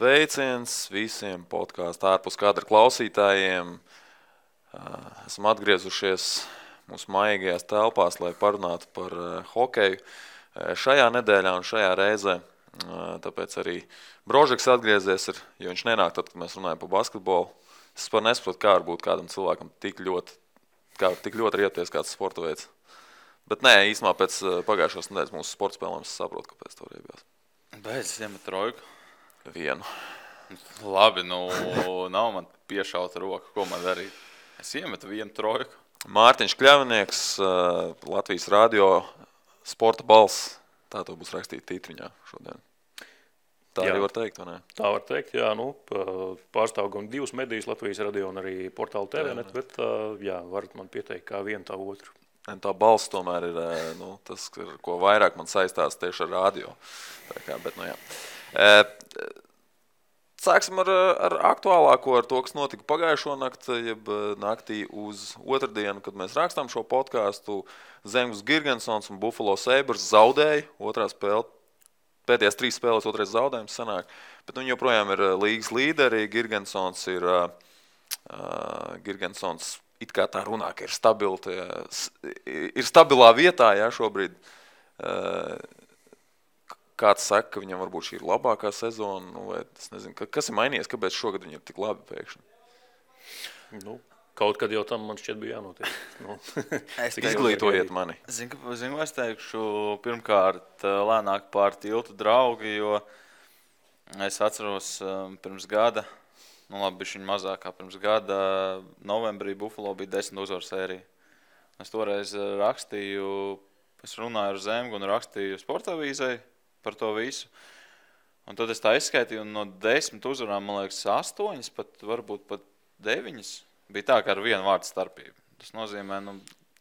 Sveiciens visiem podkāstu ārpus kadra klausītājiem. Esam atgriezušies mūsu maigajās telpās, lai parunātu par hokeju šajā nedēļā un šajā reizē. Tāpēc arī Brožeks atgriezies, jo viņš nenāk tad, kad mēs runājam par basketbolu. Es nesaprotu, kā var būt kādam cilvēkam tik ļoti rieties kāds sporta veids. Bet nē, īstenībā pēc pagājušās nedēļas mūsu sporta spēlēm es saprotu, kāpēc to riebjās. Beidz iemet trojku. Vienu. Labi, nav man piešauta roka, ko man darīt. Es iemetu vienu trojku. Mārtiņš Kļavnieks, Latvijas radio sporta balss. Tā to būs rakstīt tītriņā šodien. Tā jā. Arī var teikt, vai ne? Tā var teikt, jā. Pārstāv gan divas medijas, Latvijas radio un arī portālu TVNet, bet jā, varat man pieteikt kā vienu tā otru. Tā balss tomēr ir tas, ko vairāk man saistās tieši ar radio. Bet, jā. Sāksim ar aktuālāko, ar to, kas notika pagājušo nakti, jeb naktī uz otrdienu, kad mēs rakstām šo podkāstu. Zemgus Girgensons un Buffalo Sabres zaudēja otrā spēle. Pēdējās 3 spēles otrais zaudējums sanāk, bet viņi joprojām ir līgas līderi. Girgensons it kā tā runā, ka ir stabilā vietā, jā, šobrīd. Kāds saka, ka viņam varbūt šī ir labākā sezona, vai es nezinu, kas ir mainījies, kāpēc šogad viņi ir tik labi pēkšņi? Kaut kad jau tam man šķiet bija jānotiek. Izglītojiet mani. Zinu, es teikšu pirmkārt lēnāk pār tiltu draugi, jo es atceros pirms gada, bišķiņ mazāk kā pirms gada, novembrī Buffalo bija 10 uzvaru sērija. Es toreiz rakstīju, es runāju ar Zemgu un rakstīju sportavīzei par to visu. Un tad es tā izskaitīju, un no 10 uzvarām, man liekas, 8, varbūt pat 9. Bija tā, ka ar vienu vārdu starpību. Tas nozīmē,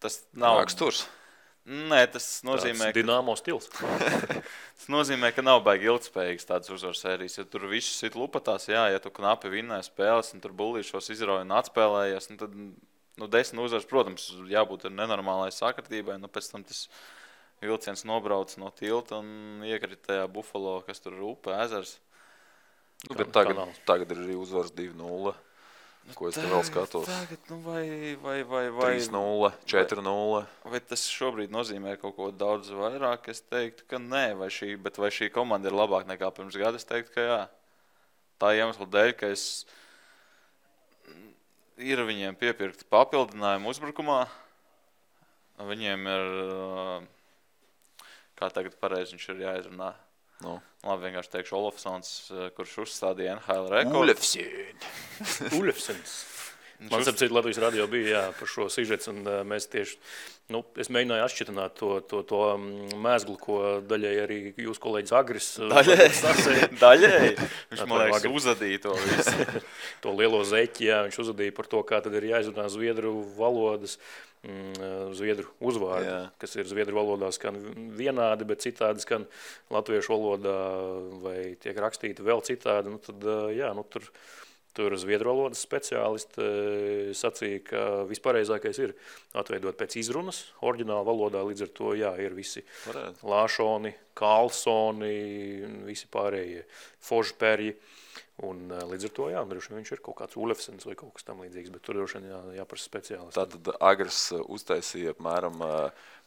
tas nav... Raksturs? Nē, tas nozīmē... Tāds Dinamo stils. Tas nozīmē, ka nav baigi ilgspējīgs tāds uzvaru sērijas. Ja tur visu sit lupatās, jā, ja tu knapi vinnēji spēles, un tur bullīšos izrauja un atspēlējies, tad 10 uzvaras, protams, jābūt ar nenormālai sakritībai, pēc tam tas vilciens nobrauc no tilta un iekrita tajā Buffalo, kas tur ir upe, ezers. Bet tagad ir arī uzvaras 2-0. Ko es te vēl skatos? Tagad, vai 3-0, 4-0. Vai tas šobrīd nozīmē kaut ko daudz vairāk? Es teiktu, ka nē, vai šī komanda ir labāk nekā pirms gada? Es teiktu, ka jā. Tā iemesla dēļ, ka ir viņiem piepirkti papildinājumi uzbrukumā. Viņiem ir, kā tagad pareizi viņš ir jāizrunā. Labi, vienkārši teikšu Olofsons, kurš uzstādīja NHL rekordu. Ulefsons. Man sapcīt, Latvijas radio bija jā, par šo sižets, un mēs tieši, es mēģināju atšķitināt to mēzglu, ko daļai arī jūs kolēģis Agris Daļai? Viņš, man liekas, uzadīja to visu. To lielo zeķi, jā, viņš uzadīja par to, kā tad ir jāizrunā zviedru valodas, zviedru uzvārdi, kas ir zviedru valodā skan vienādi, bet citādi skan latviešu valodā vai tiek rakstīti vēl citādi. Tur zviedru valodas speciālisti sacīja, ka vispareizākais ir atveidot pēc izrunas oriģināla valodā, līdz ar to, jā, ir visi Lāšoni, Karlsoni, visi pārējie Fožperji. Un līdz ar to, jā, droši viņš ir kaut kāds Ulefsens vai kaut kas tam līdzīgs, bet tur droši jāprasa speciālisti. Tātad Agris uztaisīja apmēram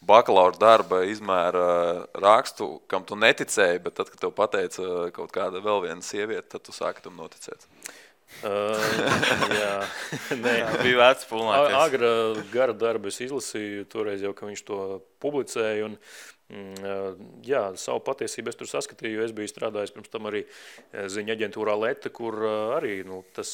bakalaura darba izmēra rakstu, kam tu neticēji, bet tad, kad tev pateica kaut kāda vēl viena sieviete, tad tu sāki tam noticēt. Jā, nē. Bija vērts pulnāties. Agra gara darbu es izlasīju, toreiz jau, ka viņš to publicēja, un jā, savu patiesību es tur saskatīju, jo es biju strādājis pirms tam arī ziņa aģentūrā Leta, kur arī tas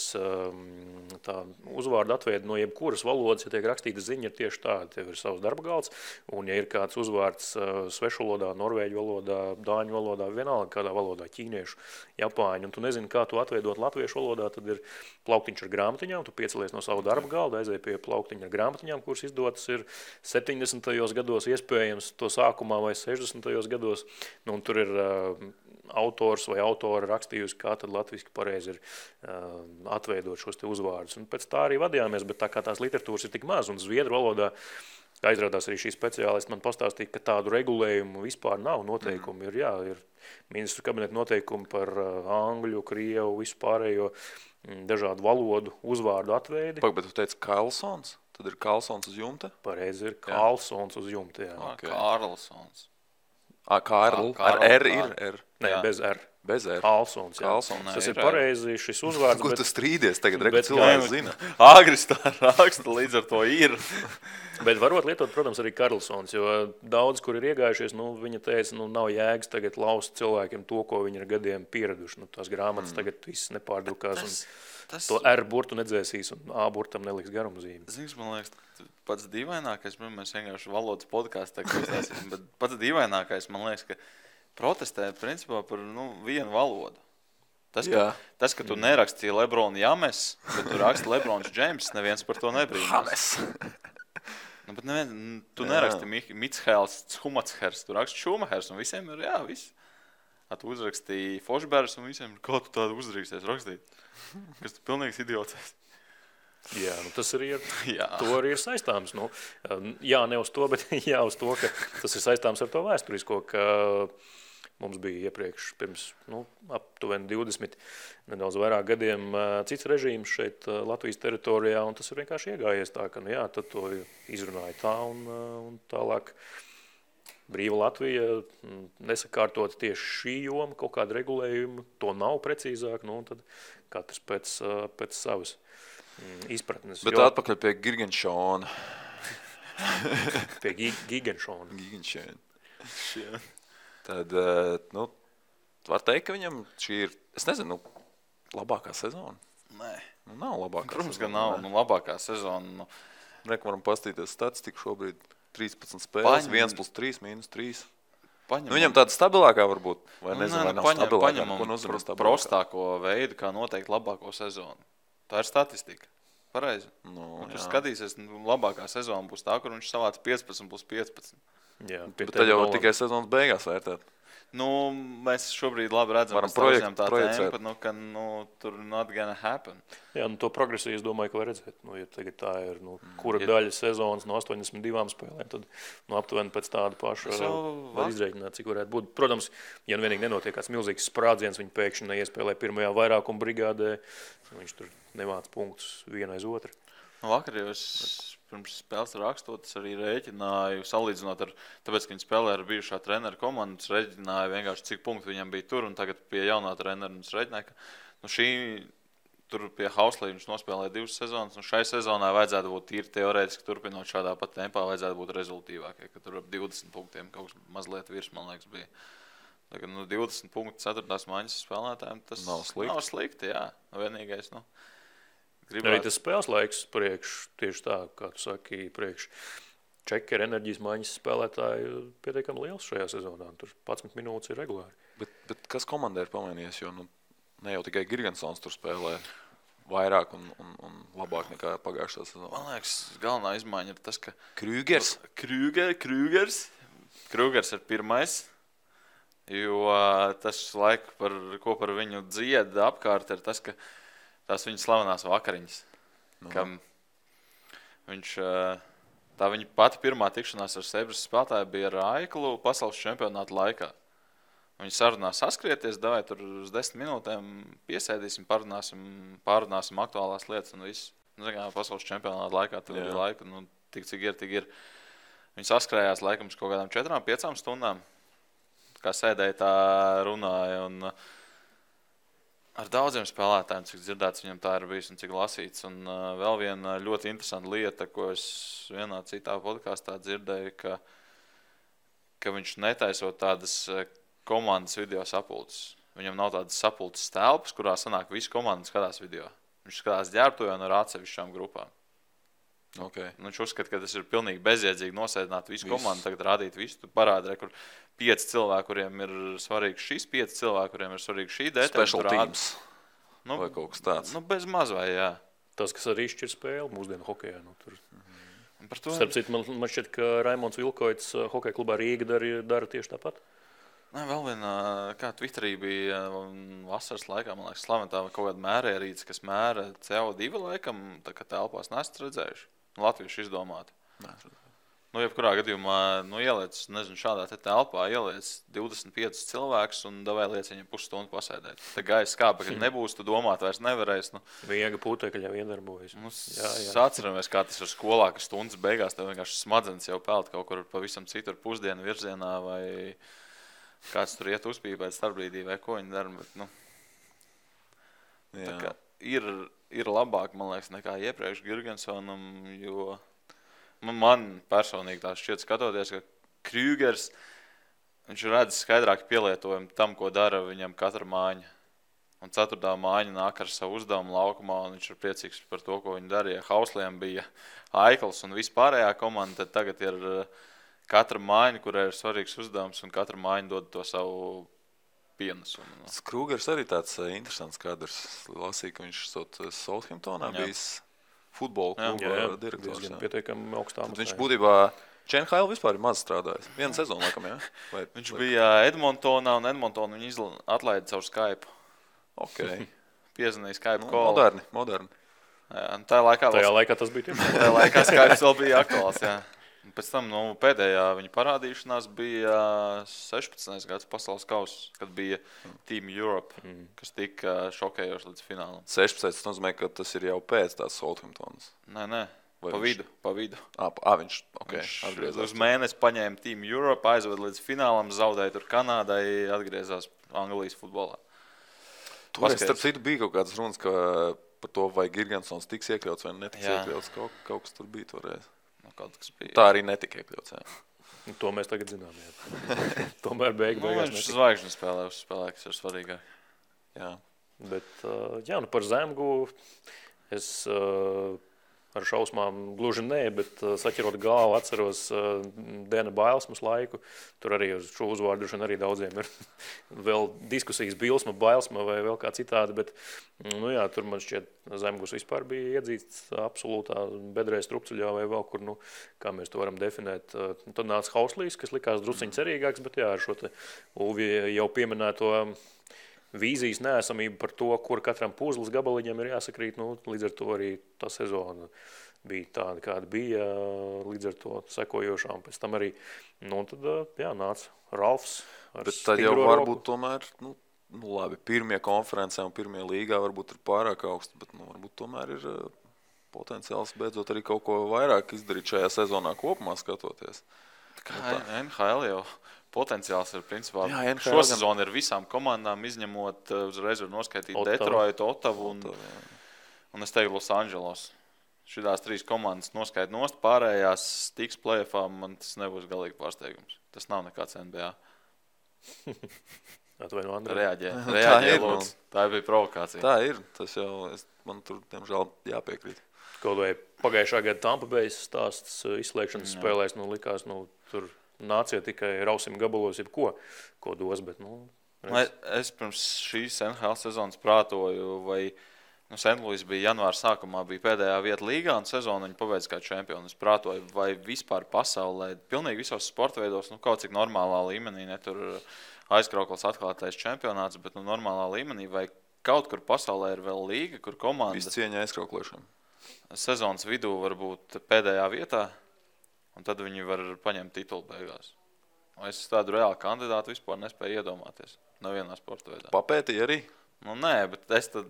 tā uzvārdu atveida no jebkuras valodas, ja tiek rakstīta ziņa, ir tieši tāda, tev ir savs darba galds, un ja ir kāds uzvārds svešu valodā, norvēģu valodā, dāņu valodā, vienalga kādā valodā, ķīniešu, japāņu, un tu nezini, kā tu atveidot latviešu valodā, tad ir plauktiņš ar grāmatiņām, tu piecelies no savu darba galda, aizēji pie plauktiņa ar grāmatiņām, kuras izdotas ir 70. gados iespējams to sākumā vai 60. gados, un tur ir autors vai autora rakstījusi, kā tad latviski pareizi ir atveidot šos te uzvārdus. Un pēc tā arī vadījāmies, bet tā kā tās literatūras ir tik maz, un zviedru valodā Aizrādās arī šī speciālisti man pastāstīja, ka tādu regulējumu vispār nav. Noteikumi ir ministru kabineta noteikumi par angļu, krievu, visu pārējo dažādu valodu uzvārdu atveidi. Bet tu teici Karlsons? Tad ir Karlsons uz jumta? Pareizi ir Karlsons uz jumta, jā. Okay. Karlsons. Karl. Ar R ir R. Nē, bez R. Bez R. Karlsons, jā. Karlsons. Tas ir pareizi šis uzvārds. Ko tu strīdies tagad? cilvēks zina. Agris tā raksta, līdz ar to ir. Bet varot lietot, protams, arī Karlsons, jo daudz, kur ir iegājušies, viņa teica, nav jēgas tagad laust cilvēkiem to, ko viņi ir gadiem pieraduši. Tās grāmatas tagad viss nepārdrukās. To R burtu nedzēsīs un A burtam neliks garumzīmi. Zinies, man liekas, pats dīvainākais, mēs vienkārši valodas podkāstā klausāsim, bet pats dīvainākais, man liekas, ka protestē principā par vienu valodu. Tas, ka tu nerakstīji Lebronu James, bet tu raksti Lebrons Džeims, neviens par to nebrīnās. Bet tu neraksti Mitshēls, Schumachers, tu raksti Schumachers un visiem ir, viss. Tu uzrakstīji Fošbērs un visiem ir, kā tu tādu uzraksties rakstīt. Kas tu pilnīgs idiots. Jā, tas arī to arī ir saistāms. Jā, ne uz to, bet jā uz to, ka tas ir saistāms ar to vēsturisko, ka mums bija iepriekš pirms aptuveni 20, nedaudz vairāk gadiem cits režīms šeit Latvijas teritorijā, un tas ir vienkārši iegājies tā, ka tad to izrunāja tā un tālāk. Brīva Latvija nesakārtot tieši šī joma, kaut kāda regulējuma, to nav precīzāk, tad katrs pēc savas izpratnes. Bet atpakaļ pie Gigenšona. Pie Gigenšona. Tad, var teikt, ka viņam šī ir, es nezinu, labākā sezona? Nē. Nav labākā Protams, sezona. Protams, ka nav labākā sezona. Varam pastīties statistiku šobrīd. 13 spēles, 1+3, -3. Viņam tāda stabilākā varbūt, vai nezinu, vai nav stabilākā. Ko nozīmē stabilākā? Prostāko veidu, kā noteikt labāko sezonu. Tā ir statistika. Pareizi. Tur skatīsies, labākā sezona būs tā, kur viņš savāc 15+15. Jā, bet tad jau tikai sezonas beigās vērtēt. Mēs šobrīd labi redzam, varam projicēt, ka tur not gonna happen. Jā, to progresiju es domāju, ka var redzēt. Ja tagad tā ir, kura daļa sezonas no 82 spēlēm, tad aptuveni pēc tāda paša var izrēķināt, cik varētu būt. Protams, ja vienīgi nenotiek kāds milzīgs sprādziens, viņi pēkšņi neiespēlē pirmajā vairākuma brigādē, viņš tur nevāc punktus vienu aiz otru. Vakar jau es pirms spēles rakstot, es arī rēķināju, salīdzinot ar, tāpēc, ka viņi spēlē ar bijušā trenera komandu, es rēķināju vienkārši, cik punktu viņam bija tur, un tagad pie jaunā trenera, un es rēķināju, ka tur pie Hauslī viņš nospēlēja 2 sezonas, un šai sezonā vajadzētu būt tīri teorētiski turpinot šādā pat tempā, vajadzētu būt rezultīvākie, ka tur ap 20 punktiem kaut kas mazliet virs, man liekas, bija. Tagad 20 punktu 4. maiņas spēlētājiem, tas nav slikti, jā. Vienīgais, Arī tas spēles laiks tieši tā, kā tu saki, priekš Čekera enerģijas maiņas spēlētāji pietiekami liels šajā sezonā. Tur 11 minūtes ir regulāri. Bet kas komandai ir pamainījies, jo ne jau tikai Girgensons tur spēlē vairāk un labāk nekā pagājušā sezonā. Man liekas, galvenā izmaiņa ir tas, ka Krūgers ir pirmais, jo tas laika, ko par viņu dzieda apkārt, ir tas, ka tās viņa slavenās vakariņas, kam tā viņa pati pirmā tikšanās ar Sebras spēlētāju bija ar Aiklu pasaules čempionāta laikā. Viņi sarunā saskrieties, davai tur uz 10 minūtēm piesēdīsim, pārunāsim aktuālās lietas un viss. Pasaules čempionāta laikā tur bija laika, tik cik ir. Viņi saskrējās laikam uz kaut kādām 4-5 stundām, kā sēdēja tā runāja un ar daudziem spēlētājiem, cik dzirdēts viņam tā ir bijis un cik lasīts. Un vēl viena ļoti interesanta lieta, ko es vienā citā podkāstā dzirdēju, ka viņš netaisot tādas komandas video sapulces. Viņam nav tādas sapulces telpas, kurā sanāk visu komandu skatās video. Viņš skatās ģērbtuvē un ar atsevišķām grupām. Okay. Viņš uzskata, ka tas ir pilnīgi bezjēdzīgi nosēdināt visu komandu, tagad rādīt visu. Tu parādi, kur 5 cilvēki, kuriem ir svarīgs šis, 5 cilvēki, kuriem ir svarīgs šī detaļa. Special teams vai kaut kas tāds. Bez maz vai, jā. Tas, kas arī šķir spēli mūsdienu hokejā. Starp citu, man šķiet, ka Raimonds Vilkoits hokeja klubā Rīga dara tieši tāpat. Vēl viena, kā Twitterī bija vasaras laikā, man liekas, slaventā kaut kāda mērierīce, kas mēra CO2 laikam, tā kā telpās nesat redzējuši. Latvieši izdomāti. Nu, jebkurā gadījumā, ieliec, nezinu, šādā te telpā, ieliec 25 cilvēkus un davai liec viņam pusstundu pasēdēt. Te gaisa skāpa, kad nebūs, tu domāt vairs nevarēs. Viega putekļi jau iedarbojas. Atceramies, kā tas ir skolā, ka stundas beigās tev vienkārši smadzenes jau peld kaut kur pavisam citur pusdienu virzienā vai kāds tur iet uzpīpēt starpbrīdī vai ko viņi dara. Bet, ir labāk, man liekas, nekā iepriekš Girgensonam, jo man personīgi tā šķiet skatoties, ka Krügers, viņš redz skaidrāk pielietojumu tam, ko dara viņam katra mājiņa. Un 4. mājiņa nāk ar savu uzdevumu laukumā, un viņš ir priecīgs par to, ko viņi darīja. Hausliem bija Aikls un vispārējā komanda, tad tagad ir katra mājiņa, kurai ir svarīgs uzdevums, un katra mājiņa dod to savu pienesumu. Krügers arī tāds interesants kadrs. Lasīju, ka viņš Southamptonā bijis futbola kluba direktors. Pietiekami augstā. Viņš būtībā Čenhaila vispār ir maz strādājis. Vienu sezonu, laikam, jā? Viņš bija Edmontonā, un Edmontonu viņu atlaida caur Skype. Okay. Piezvanīja Skype call. Moderni. Jā, tajā laikā tas bija tieši. Tajā laikā Skype vēl bija aktuāls, jā. Un pēc tam pēdējā viņa parādīšanās bija 16. gads pasaules kauss, kad bija Team Europe, kas tika šokējoši līdz finālam. 16. Tas nozīmē, ka tas ir jau pēc tās Southamptonas. Nē. Pa vidu. Viņš atgriezās. Uz mēnesi paņēma Team Europe, aizved līdz finālam, zaudēja tur Kanādai, atgriezās Anglijas futbolā. Toreiz, starp citu, bija kaut kādas runas, ka par to, vai Girgensons tiks iekļauts vai netiks iekļauts. Kaut kas tur bija toreiz. Tā arī netika iekļauts. Jā. To mēs tagad zinām. Tomēr beigās viņš zvaigžņu spēlē, kas ir svarīgāk. Jā. Bet, par Zemgu es ar šausmām gluži nē, bet saķerot galvu atceros Dena Bailsmas laiku. Tur arī uz šo uzvārdu arī daudziem ir vēl diskusijas Bilsma, Bailsma vai vēl kā citādi, bet tur man šķiet Zemgus vispār bija iedzīts absolūtā bedrē strupceļā vai vēl kur, kā mēs to varam definēt. Tad nāca Hauslīs, kas likās drusciņ cerīgāks, bet ar šo te Ulvi jau pieminēto vīzijas neesamību par to, kur katram puzles gabaliņam ir jāsakrīt, līdz ar to arī tā sezona bija tāda, kāda bija, līdz ar to sekojošām. Pēc tam arī, tad nāca Ralfs. Bet tad jau varbūt tomēr, labi, pirmie konferencē un pirmie līgā varbūt ir pārāk augsti, bet varbūt tomēr ir potenciāls beidzot arī kaut ko vairāk izdarīt šajā sezonā kopumā skatoties. Kā NHL jau potenciāls ir principā. Šo sezonu ir visām komandām, izņemot uzreiz var noskaitīt Detroitu, Ottavu un es teiktu Los Angeles. Šitās 3 komandas noskaita nost, pārējās tiks play-offā, man tas nebūs galīgi pārsteigums. Tas nav nekāds NBA. Atvaino, Andrej. Reaģē, lūdzu. Tā bija provokācija. Tā ir. Tas jau, man tur, diemžēl, jāpiekrīt. Kaut vai pagājušā gada Tampa Bay stāsts izslēgšanas spēlēs, likās, tur nācija tikai rausim gabalos, ko dos, bet, Es pirms šīs NHL sezonas prātoju, vai St. Louis bija janvāra sākumā, bija pēdējā vieta līgā un sezonu viņi pabeidz kā čempioni. Es prātoju, vai vispār pasaulē, pilnīgi visos sporta veidos, kaut cik normālā līmenī, ne tur aizkrauklis atklātais čempionāts, bet normālā līmenī, vai kaut kur pasaulē ir vēl līga, kur komanda visu cieņa aizkrauklēšana. Sezonas vidū var būt pēdējā vietā, un tad viņi var paņemt titulu beigās. Es tādu reālu kandidātu vispār nespēju iedomāties. Nevienā sporta veidā. Papētīja arī? Nē, bet es tad...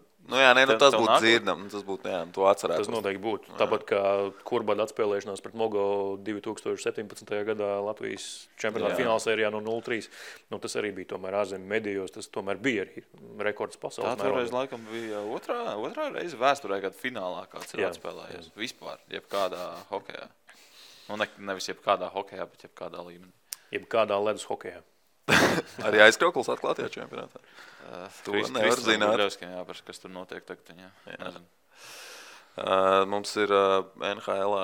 tas būtu dzirdam, tas būtu, to atcerētos. Tas noteikti būtu. Tāpat kā Kurbada atspēlēšanās pret Mogo 2017. gadā Latvijas čempionāta finālsērijā no 0-3. Tas arī bija tomēr ārzemju medijos, tas tomēr bija arī rekords pasaules mērogā. Tā toreiz laikam bija otrā reize vēsturē, kad finālā kāds ir atspēlējies. Vispār, jebkādā hokejā. Nevis jebkādā hokejā, bet jebkādā līmenī. Jebkādā ledus hokejā. Arī aizkrauklis atklātajā čempionātā. To nevar zināt. Jāpars, kas tur notiek tagad. Jā. Mums ir NHL-ā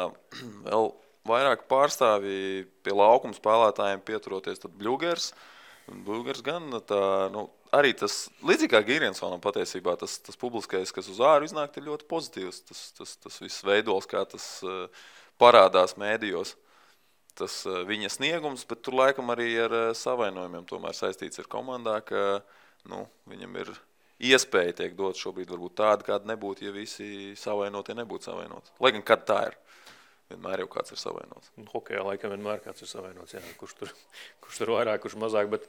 vēl vairāk pārstāvji pie laukuma spēlētājiem pieturoties. Tad Bļūgers gan arī tas, līdzīgi kā Girgensonam patiesībā, tas publiskais, kas uz āru iznāk, ir ļoti pozitīvs. Tas viss veidols, kā tas parādās mēdījos. Tas viņa sniegums, bet tur laikam arī ar savainojumiem tomēr saistīts ar komandā, ka viņam ir iespēja tiek dot šobrīd varbūt tāda, kāda nebūtu, ja visi savainotie nebūtu savainoti. Lai gan kad tā ir. vienmēr jau kāds ir savainots. Hokejā laikam vienmēr kāds ir savainots, jā, kurš tur vairāk, kurš mazāk, bet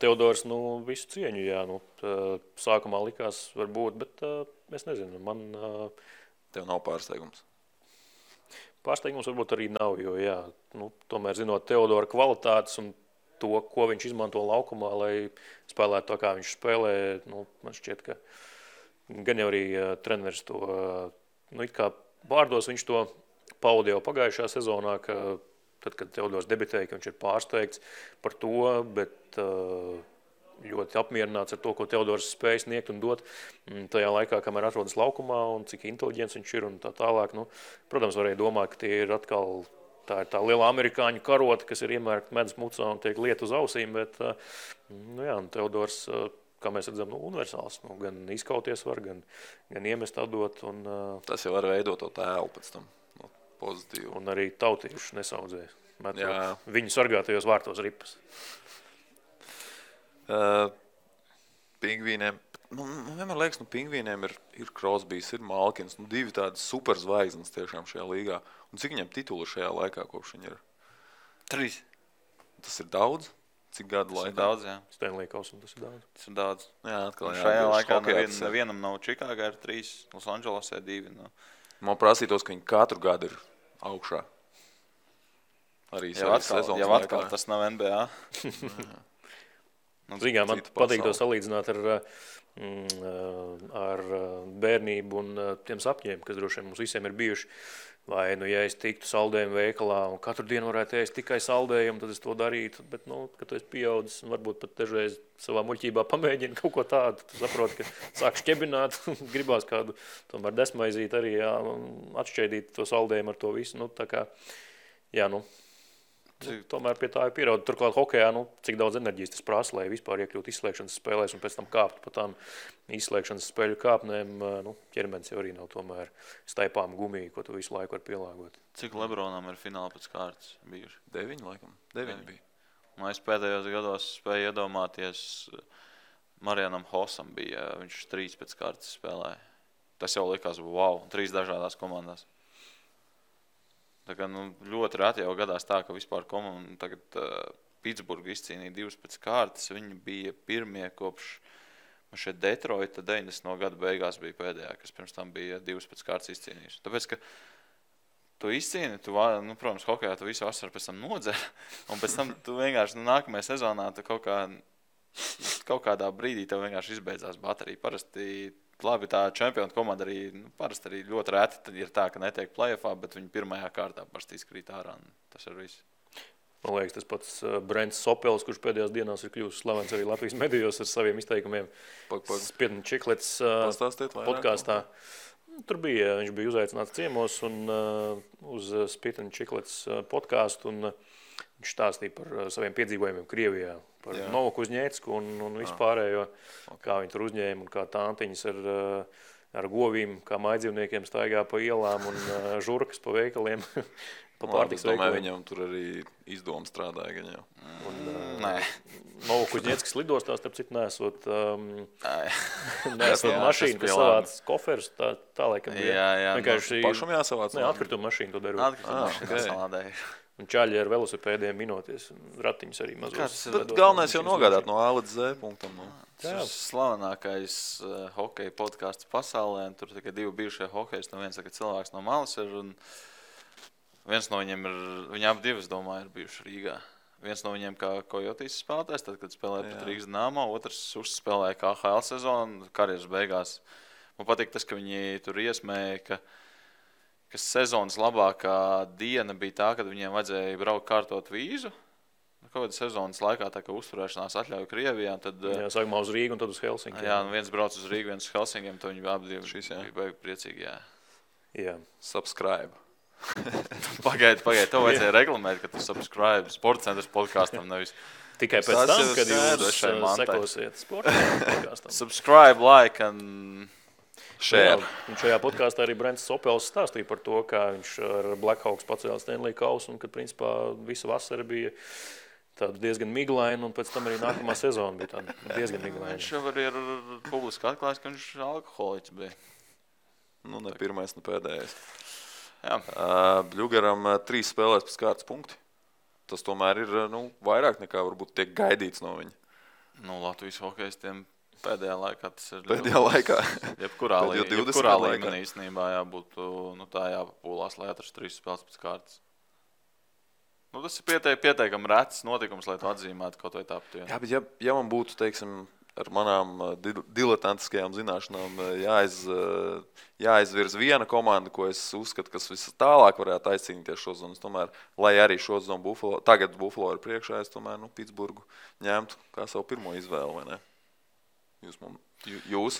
Teodors, visu cieņu, jā, sākumā likās varbūt, bet es nezinu, man... Tev nav pārsteigums? Pārsteigums varbūt arī nav, jo, jā, tomēr zinot Teodora kvalitātes un to, ko viņš izmanto laukumā, lai spēlētu to, kā viņš spēlē, man šķiet, ka gan jau arī treneris to, it kā vārdos viņš to paudi jau pagājušā sezonā, ka tad, kad Teodors debitēja, ka viņš ir pārsteigts par to, bet ļoti apmierināts ar to, ko Teodors spēj sniegt un dot tajā laikā, kamēr atrodas laukumā un cik inteliģents viņš ir un tā tālāk. Protams, varēja domāt, ka tie ir atkal tā ir tā liela amerikāņu karota, kas ir iemērkta medus mucā un tiek liet uz ausīm, bet Teodors, kā mēs redzam, universāls, gan izkauties var, gan iemest atdot. Un, tas jau var veidot to tēlu pēc tam. Pozitīvi. Un arī tautījuši nesaudzēja. Viņu sargātajos vārtos ripas. Pingvīniem, vienmēr liekas, pingvīniem ir Crosbys, ir Malkins, divi tādi superzvaigznes tiešām šajā līgā. Un cik viņam titulu šajā laikā, kopš viņi ir? 3. Tas ir daudz? Cik gadu laikā? Tas ir daudz, jā. Stanley Kausam tas ir daudz. Tas ir daudz. Jā, atkal, šajā laikā nevienam nav Čikāgā ir 3, Losandželosē 2. Man prasītos, ka viņi katru gadu ir augšā. Arī sezonas jau atkal tas nav NBA. Zīgā, man patīk to salīdzināt ar bērnību un tiem sapņiem, kas droši vien mums visiem ir bijuši. Vai, ja es tiktu saldējumu veikalā un katru dienu varētu ēst tikai saldējumu, tad es to darītu. Bet, kad tu esi pieaudzis un varbūt pat dažreiz savā muļķībā pamēģini kaut ko tādu, tu saproti, ka sāk šķebināt, gribās kādu tomēr desmaizīt arī, jā, atšķēdīt to saldējumu ar to visu. Tā kā, jā, tomēr pie tā ir pierādīt. Turklāt hokejā, cik daudz enerģijas tas prasa, lai vispār iekļūt izslēgšanas spēlēs un pēc tam kāptu pa tām izslēgšanas spēļu kāpnēm. Ķermenis jau arī nav tomēr staipām gumiju, ko tu visu laiku var pielāgot. Cik Lebronam ir fināli pēc kārtas bijuši? 9, laikam. 9 bija. Un es pēdējos gados spēju iedomāties, Marianam Hosam bija, viņš 3 pēc kārtas spēlēja. Tas jau likās, wow, 3 dažādās komandās. Tā kā, ļoti reti jau gadās tā, ka vispār komanda tagad Pitsburga izcīnīja 2 pēc kārtas. Viņi bija pirmie kopš šeit Detroita 90. gada beigās bija pēdējā, kas pirms tam bija 2 pēc kārtas izcīnījuši. Tāpēc, ka tu izcīni, protams, hokejā tu visu vasaru pēc tam nodzer, un pēc tam tu vienkārši nākamajā sezonā tu kaut kādā brīdī tev vienkārši izbeidzās baterija. Parasti labi, tā čempionu komanda arī, parasti arī ļoti reti ir tā, ka netiek play-offā, bet viņi pirmajā kārtā parasti izkrīt ārā, un tas ir viss. Man liekas, tas pats Brents Sopels, kurš pēdējās dienās ir kļuvis slavens arī Latvijas medijos ar saviem izteikumiem. Spiedņu Čiklets podkāstā. Tur bija, viņš bija uzaicināts ciemos un uz Spiedņu Čiklets podkāstu, un viņš stāstīja par saviem piedzīvojumiem Krievijā, par Novaku Uzņēcku un vispārējo, kā viņi tur uzņēma un kā tāntiņas ar govīm, kā mājdzīvniekiem staigā pa ielām un žurkas pa veikaliem, pa pārtiks veikaliem. Domāju, viņam tur arī izdoma strādāja gan jau. Nē. Novaku Uzņēckas lidostā, starp citu, nesot mašīnu, kas savāc koferus, tā laikam bija. Jā. Pašam jāsavāc? Nē, atkrituma mašīnu to darot. Atkrituma mašīnu salādēja. Un čaļi ar velosipēdiem minoties, ratiņus arī mazos. Bet galvenais jau nogādāt no A līdz Z punktam. Tas ir slavenākais hokeja podcasts pasaulē, un tur tikai 2 bijušie hokejs, viens cilvēks no malas ir, un viens no viņiem ir, viņi abi 2, es domāju, ir bijuši Rīgā. Viens no viņiem kā Kojotīs spēlētājs, tad, kad spēlēja pat Rīgas Dynamo, otrs uzspēlēja KHL sezonu, karjeras beigās. Man patīk tas, ka viņi tur iesmēja, ka sezonas labākā diena bija tā, kad viņiem vajadzēja braukt kārtot vīzu. Kaut kādā sezonas laikā tā kā uzturēšanās atļauja Krievijā. Tad, sākumā uz Rīgu un tad uz Helsinkiem. Jā, viens brauc uz Rīgu, viens uz Helsinkiem, tad viņi abi bija beig priecīgi, jā. Subscribe. Pagaidi, tev vajadzēja reklamēt, ka tu subscribe Sportcenters podkastam, nevis. Tikai pēc tam, kad jūs sekosiet Sportcenters podkastam. Subscribe, like and share. Un šajā podkāstā arī Brents Sopels stāstīja par to, kā viņš ar Blackhawks pacēla Stanley Kausu un kad principā visa vasara bija tāda diezgan miglaina un pēc tam arī nākamā sezona bija tāda diezgan miglaina. Viņš jau arī ir publiski atklājis, ka viņš alkoholiķis bija. Ne pirmais, ne pēdējais. Bļugaram 3 spēlēs pēc kārtas punkti. Tas tomēr ir vairāk nekā varbūt tiek gaidīts no viņa. Latvijas hokejistiem pēdējā laikā tas ir Pēdējā laikā. Jebkurā līmenī īstenībā jābūt tā jāpapūlās, lai atrastu 3 spēles pēc kārtas. Tas ir pietiekami rets notikums, lai tu atzīmētu kaut vai tāpat. Jā, bet ja man būtu, teiksim, ar manām diletantiskajām zināšanām jāizvirz viena komanda, ko es uzskatu, kas vistālāk varētu aizcīnīties šo zonu. Tomēr, lai arī šo zonu tagad Buffalo ir priekšā, es tomēr Pitsburgu ņemtu kā savu pirmo izvēli, vai ne? Jūs?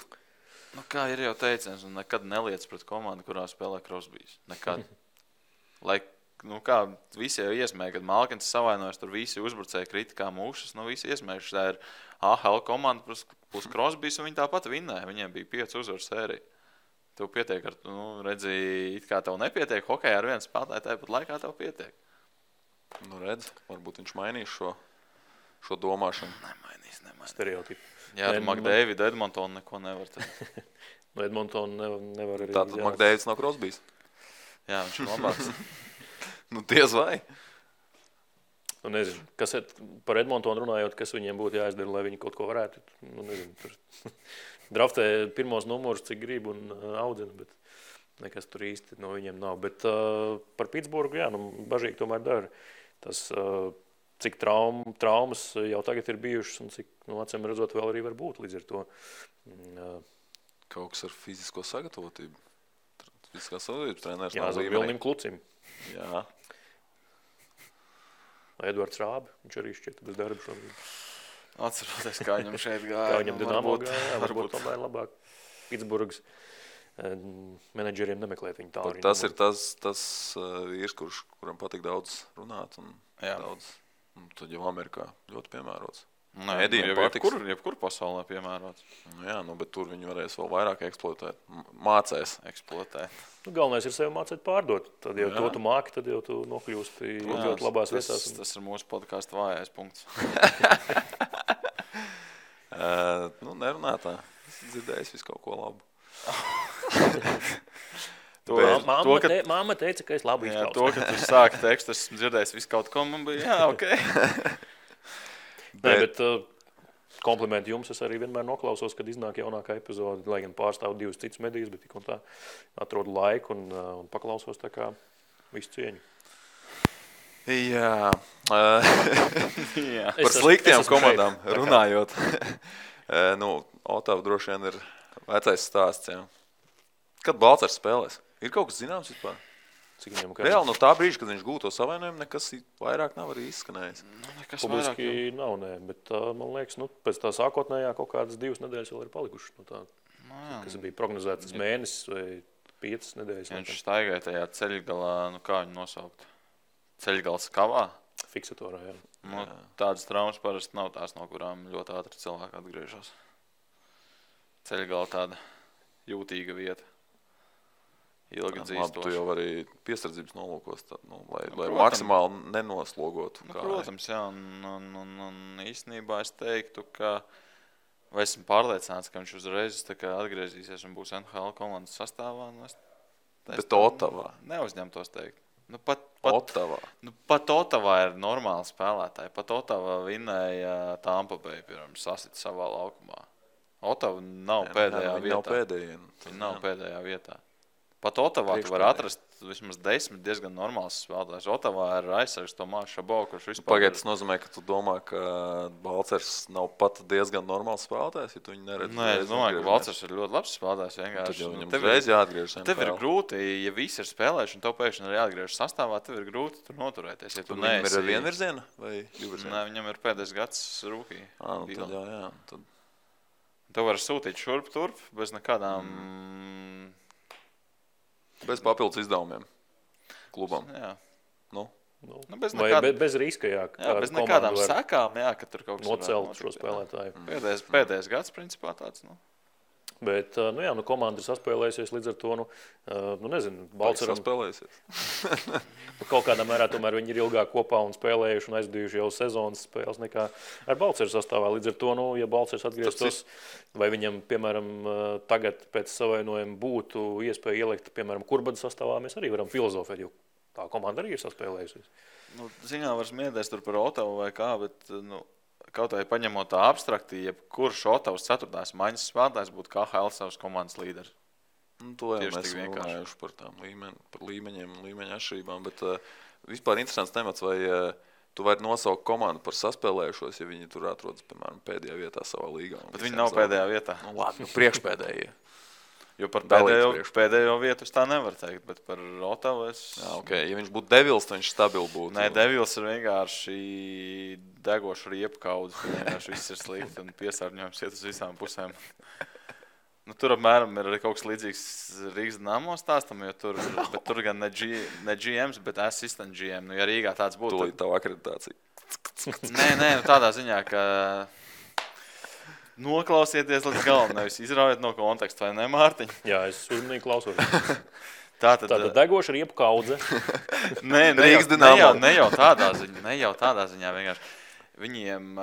Kā ir jau teiciens, nekad neliec pret komandu, kurā spēlē Crosbys. Nekad. Kā visi jau iesmēja, kad Malkins savainojas, tur visi uzbrucēji kritikā mūšas, visi iesmējuši, tā ir AHL komanda plus Crosbys, un viņi tāpat vinnēja. Viņiem bija 5 uzvaru sērija. Tev pietiek ar, redzēji, it kā tev nepietiek hokejā ar vienu spēlētāju, tāpat laikā tev pietiek. Redz, varbūt viņš mainīs šo domāšanu. Nemainīs. Stereotipu. Jā, tu McDavidu, Edmontonu neko nevar teikt. Edmontonu nevar arī. Tātad McDavids nav Crosbys? Jā, viņš ir labāks. Diez vai? Nezinu, kas par Edmontonu runājot, kas viņiem būtu jāizdara, lai viņi kaut ko varētu. Nezinu, draftē pirmos numurus, cik grib un audzina, bet nekas tur īsti no viņiem nav. Bet par Pitsburgu, jā, bažīgi tomēr dara. Tas, cik traumas jau tagad ir bijušas un cik, acīm redzot, vēl arī var būt līdz ar to. Kaut kas ar fizisko sagatavotību. Fiziskā sagatavotības treneris nav līmenī. Jā, Vilnim Klucim. Jā. Edvards Rābi, viņš arī šķiet bez darba šobrīd. Atceroties, kā viņam šeit gāja. Kā viņam Dinamo gāja, varbūt tomēr labāk. Pitsburgas menedžeriem nemeklēt viņu tālu. Tas ir tas vīrs, kuram patīk daudz runāt un daudz. Un tad jau Amerikā ļoti piemērots. Jebkur pasaulē piemērots. Bet tur viņi varēs vēl vairāk eksploatēt. Mācēs eksploatēt. Galvenais ir sevi mācēt pārdot. Tad jau to tu māki, tad jau tu nokļūsti ļoti labās vietās. Tas ir mūsu podkāstu vājais punkts. Nerunā tā. Es dzirdējis visu kaut ko labu. Māma teica, ka es labi izklausās. To, ka tu sāki tekstu, esmu dzirdējis visu kaut ko, man bija, ok. Bet komplimenti jums, es arī vienmēr noklausos, kad iznāk jaunākā epizode, lai gan pārstāv 2 citus medijas, bet tik un tā atrodu laiku un paklausos tā kā visu cieņu. Jā. Par sliktiem komandām runājot. Otava droši vien ir vecais stāsts. Jā. Kad Balcers spēlēs? Ir kaut kas zināms vispār? Reāli no tā brīža, kad viņš gūto savainojumu, nekas vairāk nav arī izskanējis. Publiski nav, bet man liekas, pēc tā sākotnējā kaut kādas 2 nedēļas vēl ir palikušas no tā, kas bija prognozētas mēnesis vai 5 nedēļas. Viņš staigāja tajā ceļgalā, kā viņu nosaukt? Ceļgals kavā? Fiksatorā, jā. Tādas traumas parasti nav tās, no kurām ļoti ātri cilvēki atgriežas. Ceļgala tāda jūtīga vieta. Ilgi dzīstoši. Tu jau arī piesardzības nolūkos, lai maksimāli nenoslogotu. Protams, jā. Un īstenībā es teiktu, ka vai esmu pārliecināts, ka viņš uzreiz atgriezīsies un būs NHL komandas sastāvā. Bet Otavā. Neuzņemtos teikt. Otavā. Pat Otavā ir normāli spēlētāji. Pat Otavā vinnēja Tampa Bay, piemēram, sasit savā laukumā. Otava nav pēdējā vietā. Viņa nav pēdējā vietā. Pat Otavā tu var atrast vismaz 10 diezgan normāls spēlētājs. Otavā ir aizsargs Tomāš Šabo, kurš vispār... Pagaid, tas nozīmē, ka tu domā, ka Balcers nav pat diezgan normāls spēlētājs, ja tu viņu neredzi. Nē, es domāju, ka Balcers ir ļoti labs spēlētājs. Tad jau viņam reiz jāatgriežas. Tev ir grūti, ja visi ir spēlējuši un tev pēkšņi ir jāatgriežas sastāvā, tev ir grūti tur noturēties. Ja tu viņam ir vienvirziena vai divvirziena? Nē, viņam ir pēdējais gads rūkī. Tad jā. Tev var sūtīt šurp turp bez nekādām... Bez papildus izdevumiem klubam. Jā. Bez riska, jā. Bez nekādām sekām, jā, ka tur kaut kas nocelt šo spēlētāju. Pēdējais gads, principā tāds, Bet, komanda ir saspēlējusies līdz ar to, nezinu, Balceram. Saspēlējusies. Kaut kādā mērā tomēr viņi ir ilgāk kopā un spēlējuši un aizdījuši jau sezonas spēles nekā ar Balceru sastāvā. Līdz ar to, ja Balcers atgrieztos, vai viņam, piemēram, tagad pēc savainojuma būtu iespēja ielikt, piemēram, Kurbada sastāvā, mēs arī varam filozofēt, jo tā komanda arī ir saspēlējusies. Ziņā var smiedēs tur par Otavu vai kā, bet, kaut vai paņemot tā abstrakti, kurš Otavas 4. maiņas spēlētājs būtu KHL savas komandas līderis. To jau mēs runājuši par tām līmeņiem un līmeņa atšķirībām, bet vispār interesants temats, vai tu vari nosaukt komandu par saspēlējušos, ja viņi tur atrodas, piemēram, pēdējā vietā savā līgā. Bet viņi nav pēdējā vietā. Labi, priekšpēdējie. Jo par pēdējo vietu es tā nevaru teikt, bet par Otavu es... Jā, okay. Ja viņš būtu Devils, tad viņš stabili būtu. Nē, Devils ir vienkārši degoša riepkaudze. Vienkārši viss ir slikti un piesārņojums iet uz visām pusēm. Tur apmēram ir arī kaut kas līdzīgs Rīgas Dinamo stāstam, jo tur gan ne GMs, bet assistant GM. Ja Rīgā tāds būtu... Tūlīt tavu akreditāciju. Nē, tādā ziņā, ka... Noklausieties līdz galam, nevis izraujiet no konteksta, vai ne, Mārtiņ? Jā, es uzmanīgi klausos. Tātad degoša riepu kaudze. Ne jau tādā ziņā vienkārši. Viņiem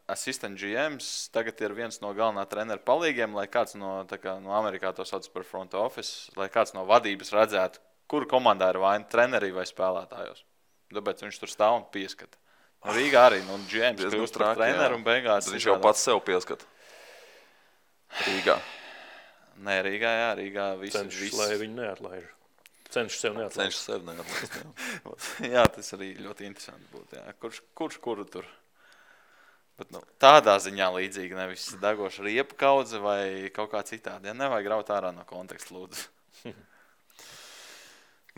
assistant GMs tagad ir viens no galvenā trenera palīgiem, lai kāds no Amerikā to sauc par front office, lai kāds no vadības redzētu, kur komandā ir vaina trenerī vai spēlētājos. Tāpēc viņš tur stāv un pieskata. Rīgā arī, GMs kļūst par treneru un beigās... Tad viņš jau pats sev pieskat. Rīgā. Nē, Rīgā viss. Cenšas, lai viņi neatlaiž. Cenšas sev neatlaist. Jā, tas arī ļoti interesanti būtu. Jā. Kurš kuru tur? Bet, tādā ziņā līdzīgi, nevis degoša riepu kaudze vai kaut kā citādi. Ja nevajag raut ārā no konteksta, lūdzu.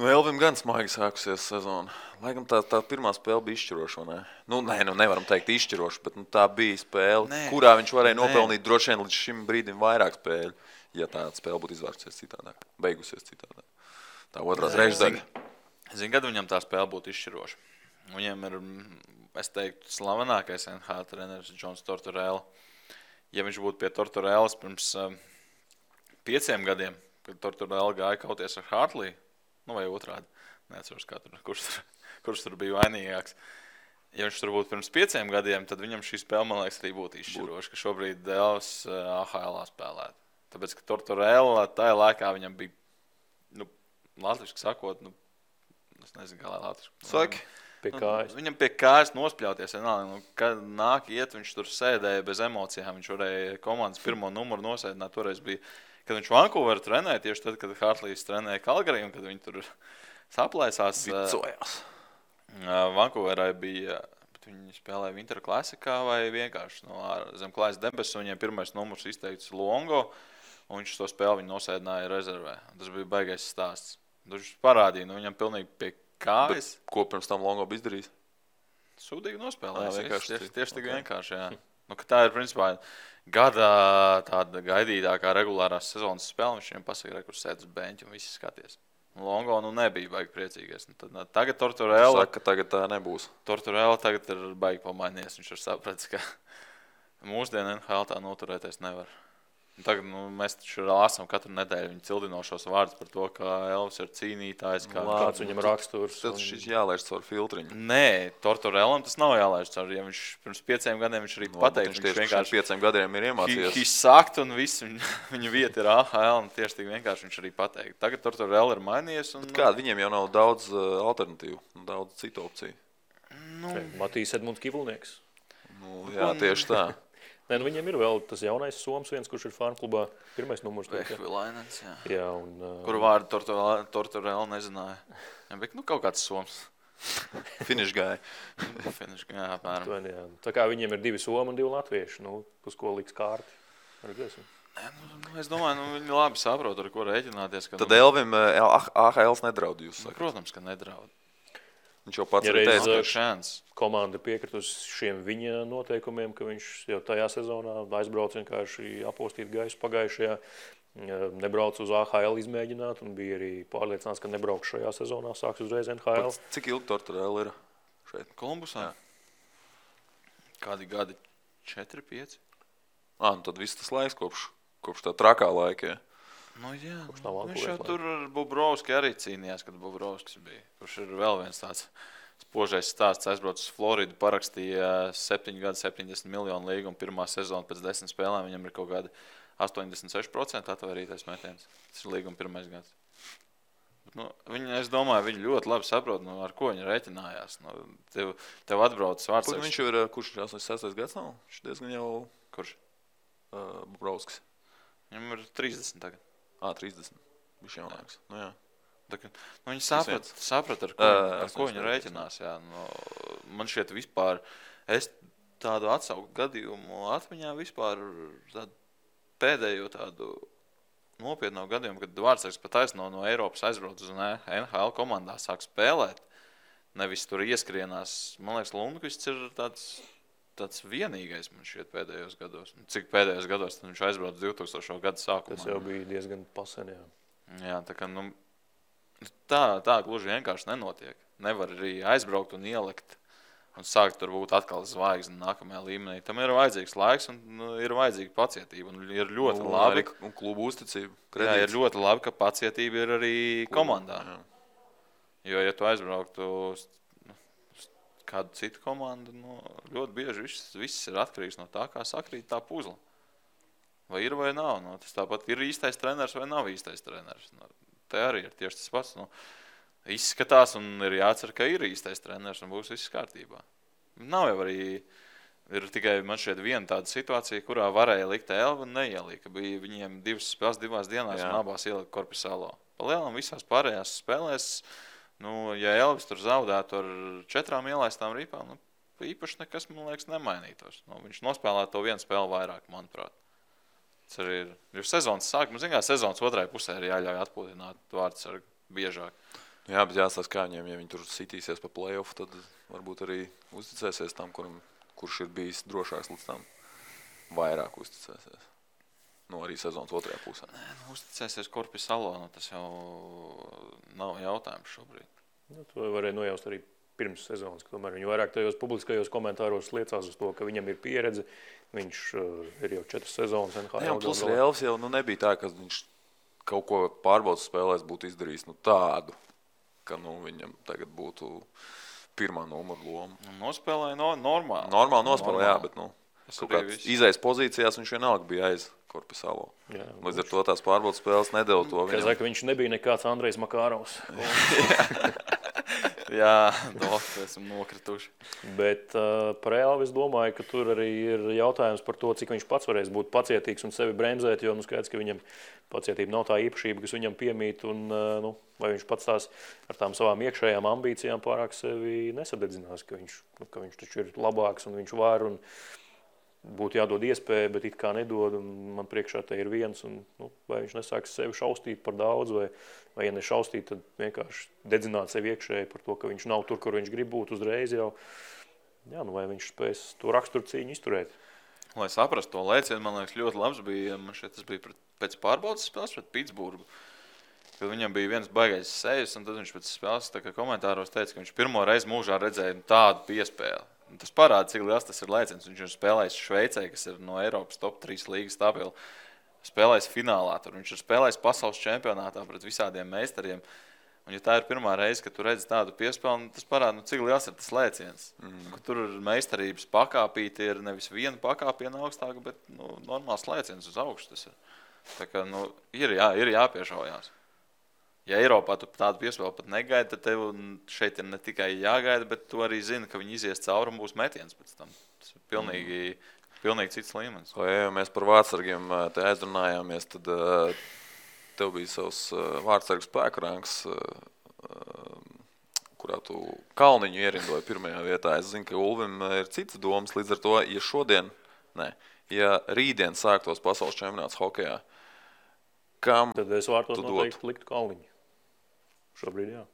Elvim gan smagi sākusies sezona. Lai gan tā pirmā spēle bija izšķiroša, vai ne? Nevaram teikt izšķiroša, bet tā bija spēle, kurā viņš varēja nopelnīt droši vien līdz šim brīdim vairāk spēļu, ja tā spēle būtu izvērsies citādāk, beigusies citādāk. Tā otrās reizes daļa. Zinu, kad viņam tā spēle būtu izšķiroša. Viņam ir, es teiktu, slavenākais NHL treneris Džons Tortorella. Ja viņš būtu pie Tortorellas pirms 5 gadiem, kad Tortorella gāja kauties ar Hartley, vai otrādi, neatceros, kurš tur bija vainīgāks. Ja viņš tur būtu pirms 5 gadiem, tad viņam šī spēle, man liekas, arī būtu izšķiroša, ka šobrīd Devs AHL spēlētu. Tāpēc, ka Tortorella tajā laikā viņam bija, latviski sakot, es nezinu, kā lai latviski. Saki. Pie kājas. Viņam pie kājas nospļauties. Kad nāk iet, viņš tur sēdēja bez emocijām. Viņš varēja komandas pirmo numuru nosēdināt. Toreiz bija, kad viņš Vancouveru trenēja, tieši tad, kad Hartlīs trenēja Calgary, un kad viņi tur saplaisās. Vicojās. Vancouverai bija, bet viņi spēlēja Winter Classicā vai vienkārši zem klājas debesu. Viņiem pirmais numurs izteikts Longo, un viņš to spēli viņu nosēdināja rezervē. Tas bija baigais stāsts. Viņš parādīja, viņam pilnīgi pie kājas. Bet ko pirms tam Longo bija izdarījis? Sūdīgi nospēlējis. Tieši tik vienkārši, jā. Ka tā ir, principā, gada tāda gaidītākā regulārās sezonas spēle. Viņš viņam pasaka, kur sēd uz beņķa un visi skaties. Longo nebija baigi priecīgais. Tagad Tortorella... Saka, ka tagad tā nebūs. Tortorella tagad ir baigi pamainies. Viņš ir sapratis, ka mūsdienu NHL tā noturēties nevar. Tagad mēs taču lāsam katru nedēļu viņa cildinošos vārdus par to, ka Elvis ir cīnītājs. Kāds viņam raksturs. Tas šis jālaiž caur filtriņu. Nē, Tortorellam tas nav jālaiž caur. Ja viņš pirms 5 gadiem viņš arī pateikt. Viņš vienkārši 5 gadiem ir iemācījies. Viņš sakt un viss viņa vieta ir AHL un tieši tik vienkārši viņš arī pateikt. Tagad Tortorella ir mainījies. Un... Kāda viņiem jau nav daudz alternatīvu, daudz citu opciju? Matīs Edmunds Kivulnieks. Jā, tieši tā. Nē, viņiem ir vēl tas jaunais soms viens, kurš ir Farm klubā. Pirmais numurs. Vehvilainens, jā. Jā, un... Kuru vārdu Tortorella nezināja. Jā, bet kaut kāds soms. Finish guy. Finish guy, apmēram. Jā. Tā kā viņiem ir 2 somi un 2 latvieši. Uz ko liks kārti. Es domāju, viņi labi saprot, ar ko rēķināties. Tad Elvim AHLs nedraud, jūs sakat? Protams, ka nedraud. Viņš jau pats ir teicis, ka komanda piekritus šiem viņa noteikumiem, ka viņš jau tajā sezonā aizbrauc vienkārši apostīt gaisu pagājušajā, nebrauc uz AHL izmēģināt un bija arī pārliecināts, ka nebrauks šajā sezonā, sāks uzreiz NHL. Cik ilgi Tortorella ir šeit? Kolumbusā? Kādi gadi? 4, 5? Tad viss tas laiks kopš kopš tā trakā laika. Nu, jā, tā viņš jau tur ar Bobrovski arī cīnījās, kad Bobrovskis bija. Kurš ir vēl viens tāds spožais stāsts. Aizbraucis uz Floridu, parakstīja 7 gadu 70 miljonu līgumu pirmā sezona pēc 10 spēlēm. Viņam ir kaut kāda 86% atvairītais metiens. Tas ir līguma pirmais gads. Nu, es domāju, viņi ļoti labi saprot, ar ko viņi rēķinājās. Tev atbraucis vārds. Viņš jau ir, kurš ir 86. gads nav? Viņš diezgan jau... Kurš? Bobrovskis. Viņam ir 30 tagad. 30. Viņš jaunāks. Nu, jā. Viņi saprat, ar ko viņi rēķinās. Jā. Man šķiet vispār, es tādu atsaukt gadījumu atmiņā vispār pēdējo tādu nopietnu gadījumu, kad Vārtsargs pat taisno no Eiropas aizbrauc uz NHL komandā, sāk spēlēt. Nevis tur ieskrienās. Man liekas, Lundqvists ir tāds vienīgais man šķiet pēdējos gados. Cik pēdējos gados tad viņš aizbrauc 2000. Gada sākumā. Tas jau bija diezgan pasen, jā. Jā, tā gluži vienkārši nenotiek. Nevar arī aizbraukt un ielikt un sākt tur būt atkal zvaigzni nākamajā līmenī. Tam ir vajadzīgs laiks un ir vajadzīga pacietība. Un ir ļoti labi. Un klubu uzticība. Jā, ir ļoti labi, ka pacietība ir arī komandā. Jā. Jo, ja tu aizbrauktu kādu citu komandu, ļoti bieži viss ir atkarīgs no tā, kā sakrīt tā puzle. Vai ir vai nav. Tas tāpat ir īstais treneris vai nav īstais treneris. Te arī ir tieši tas pats. Izskatās un ir jācer, ka ir īstais treneris un būs viss kārtībā. Nav jau arī, ir tikai man šeit viena tāda situācija, kurā varēja likt Elvi un neielika. Bija viņiem 2 spēles 2 dienās un abās ielika Korpisalo. Pa lielam visās pārējās spēlēs, ja Elvis tur zaudētu ar 4 ielaistām rīpām, īpaši nekas, man liekas, nemainītos. Viņš nospēlētu to vienu spēli vairāk, manuprāt. Tas arī ir. Jo sezonas sākuma, sezonas otrajā pusē ir jāļauj atpūtināt Vārtsargu biežāk. Jā, bet jāstāsta, kā viņiem, ja viņi tur sitīsies pa play-off, tad varbūt arī uzticēsies tam, kurš ir bijis drošāks līdz tam. Vairāk uzticēsies. Arī sezonas otrajā pusē. Uzticēsies Korpisalo, tas jau nav jautājums šobrīd. To varēja nojaust arī pirms sezonas, ka tomēr viņi vairāk tajos publiskajos komentāros liecās uz to, ka viņam ir pieredze. Viņš ir jau 4 sezonas NHL. Jā, plus Elvis jau nebija tā, ka viņš kaut ko pārbaudas spēlēs būtu izdarījis tādu, ka viņam tagad būtu pirmā numura loma. Nospēlēja normāli. Normāli nospēlēja, jā, bet kaut kāds izējas pozīcijās viņš vienalga bija aiz Korpisalo. Līdz ar to tās pārbaudas spēles nedeva to viņam. Saka, viņš nebija nekāds Andrejs Makārovs. Jā, esam nokrituši. Bet par Elvi es domāju, ka tur arī ir jautājums par to, cik viņš pats varēs būt pacietīgs un sevi bremzēt, jo skaidrs, ka viņam pacietība nav tā īpašība, kas viņam piemīt, un vai viņš pats tās ar tām savām iekšējām ambīcijām pārāk sevi nesadedzinās, ka viņš taču ir labāks un viņš var un būtu jādod iespēja, bet it kā nedod, un man priekšā te ir viens, un vai viņš nesāks sevi šaustīt par daudz, vai ja nešaustīt, tad vienkārši dedzināt sevi iekšēji par to, ka viņš nav tur, kur viņš grib būt uzreiz jau. Jā, vai viņš spēs to raksturu cīņu izturēt. Lai saprastu to lēcienu, man liekas, ļoti labs bija, man šeit tas bija pēc pārbaudas spēles pret Pitsburgu, kad viņam bija viens baigais sejas, un tad viņš pēc spēles komentāros teica, ka viņš pirmo reizi mūžā redzēja tādu piespēli. Tas parāda, cik liels tas ir lēciens. Viņš ir spēlējis Šveicē, kas ir no Eiropas top 3 līgas stabili. Spēlējis finālā. Tur viņš ir spēlējis pasaules čempionātā pret visādiem meistariem. Un ja tā ir pirmā reize, kad tu redzi tādu piespēli, tas parāda, cik liels ir tas lēciens. Tur ir meistarības pakāpīti, ir nevis viena pakāpiena augstāka, bet normāls lēciens uz augšu tas ir. Tā kā, ir jāpiešaujās. Ja Eiropā tu tādu piespēli pat negaidi, tad tev šeit ir ne tikai jāgaida, bet tu arī zini, ka viņi izies cauri un būs metiens pēc tam. Tas ir pilnīgi cits līmenis. Ja mēs par vārtsargiem te aizrunājāmies, tad tev bija savs vārtsargu spēku rangs, kurā tu Kalniņu ierindoji pirmajā vietā. Es zinu, ka Ulvim ir citas domas, līdz ar to, ja rītdien sāktos pasaules čempionāts hokejā, kam tad es vārtos noteikti liktu Kalniņu. Šobrīd, jā.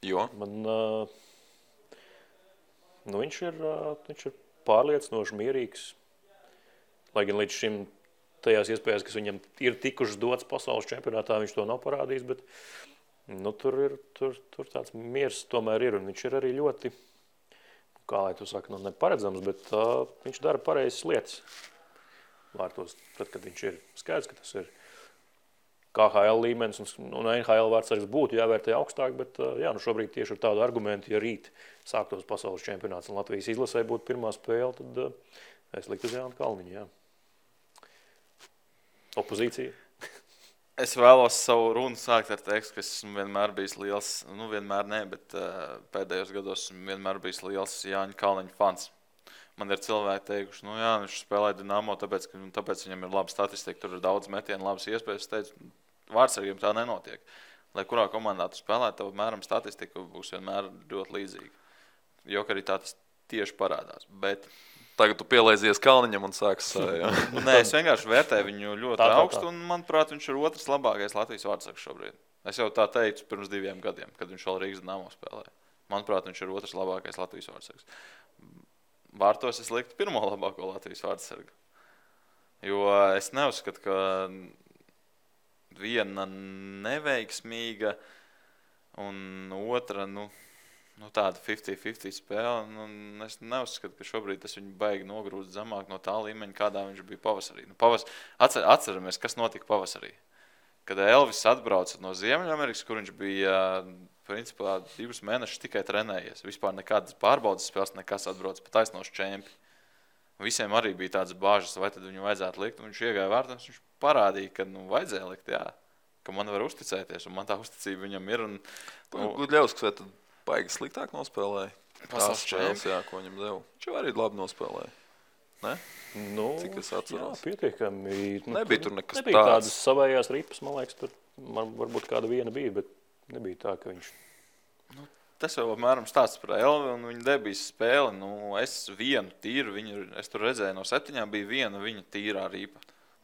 Jo? Viņš ir pārliecinoši mierīgs. Lai gan līdz šim tajās iespējas, kas viņam ir tikušas dots pasaules čempionātā, viņš to nav parādījis, bet tur tāds miers tomēr ir. Un viņš ir arī ļoti, kā lai tu saki, neparedzams, bet viņš dara pareizas lietas. vārtos, tad, kad viņš ir skaidrs, ka tas ir KHL līmenis un NHL vārdsargs būtu jāvērtē augstāk, bet jā, nu šobrīd tieši ar tādu argumentu, ja rīt sāktos pasaules čempionāts un Latvijas izlasē būtu pirmā spēle, tad es liktu uz Jānu Kalniņu, jā. Opozīcija. Es vēlos savu runu sākt ar tekstu, ka esmu vienmēr bijis liels, nu vienmēr ne, bet pēdējos gados esmu vienmēr bijis liels Jāņa Kalniņa fans. Man ir cilvēki teikuši, nu jā, viņš spēlē Dinamo, tāpēc viņam ir laba statistika, tur ir daudz metienu, labas iespējas. Es teicu, vārdsargiem tā nenotiek. Lai kurā komandā tu spēlē, tev mēram statistika būs vienmēr ļoti līdzīga. Jo arī tā tas tieši parādās. Bet tagad tu pielaizies Kalniņam un sāks jā. Nē, es vienkārši vērtēju viņu ļoti augstu, un manuprāt, viņš ir otrs labākais Latvijas vārdsargs šobrīd. Es jau tā teicu pirms 2 gadiem, kad viņš vēl Rīgas Dinamo spēlēja. Manuprāt, viņš ir otrs labākais Latvijas vārdsargs. Vārtos es liktu pirmo labāko Latvijas vārdsargu. Jo es neuzskatu, ka viena neveiksmīga un otra, tāda 50-50 spēle. Es neuzskatu, ka šobrīd tas viņu baigi nogrūst zemāk no tā līmeņa, kādā viņš bija pavasarī. Atceramies, kas notika pavasarī. Kad Elvis atbrauca no Ziemeļamerikas, kur viņš bija principā 2 mēnešus tikai trenējies. Vispār nekādas pārbaudas spēles, nekas atbrauc pa taisnos čempi. Visiem arī bija tādas bāžas, vai tad viņu vajadzētu likt. Viņš iegāja vārtos, viņš parādīja, ka vajadzēja likt, jā. Ka man var uzticēties, un man tā uzticība viņam ir. Gudļevskis vai tad baigi sliktāk nospēlēja? Tās spēles, jā, ko viņam deva. Viņš arī labi nospēlēja. Ne? Cik es atceros? Jā, pietiekami. Nebija tur nekas nebija tādas savējās ripas, man liekas, tur varbūt kāda viena bija, bet nebija tā, ka viņš... Tas jau apmēram stāsts par Elvi un viņa debijas spēli. Es vienu tīru, es tur redzēju no 7, bija viena viņa tīrā ripa.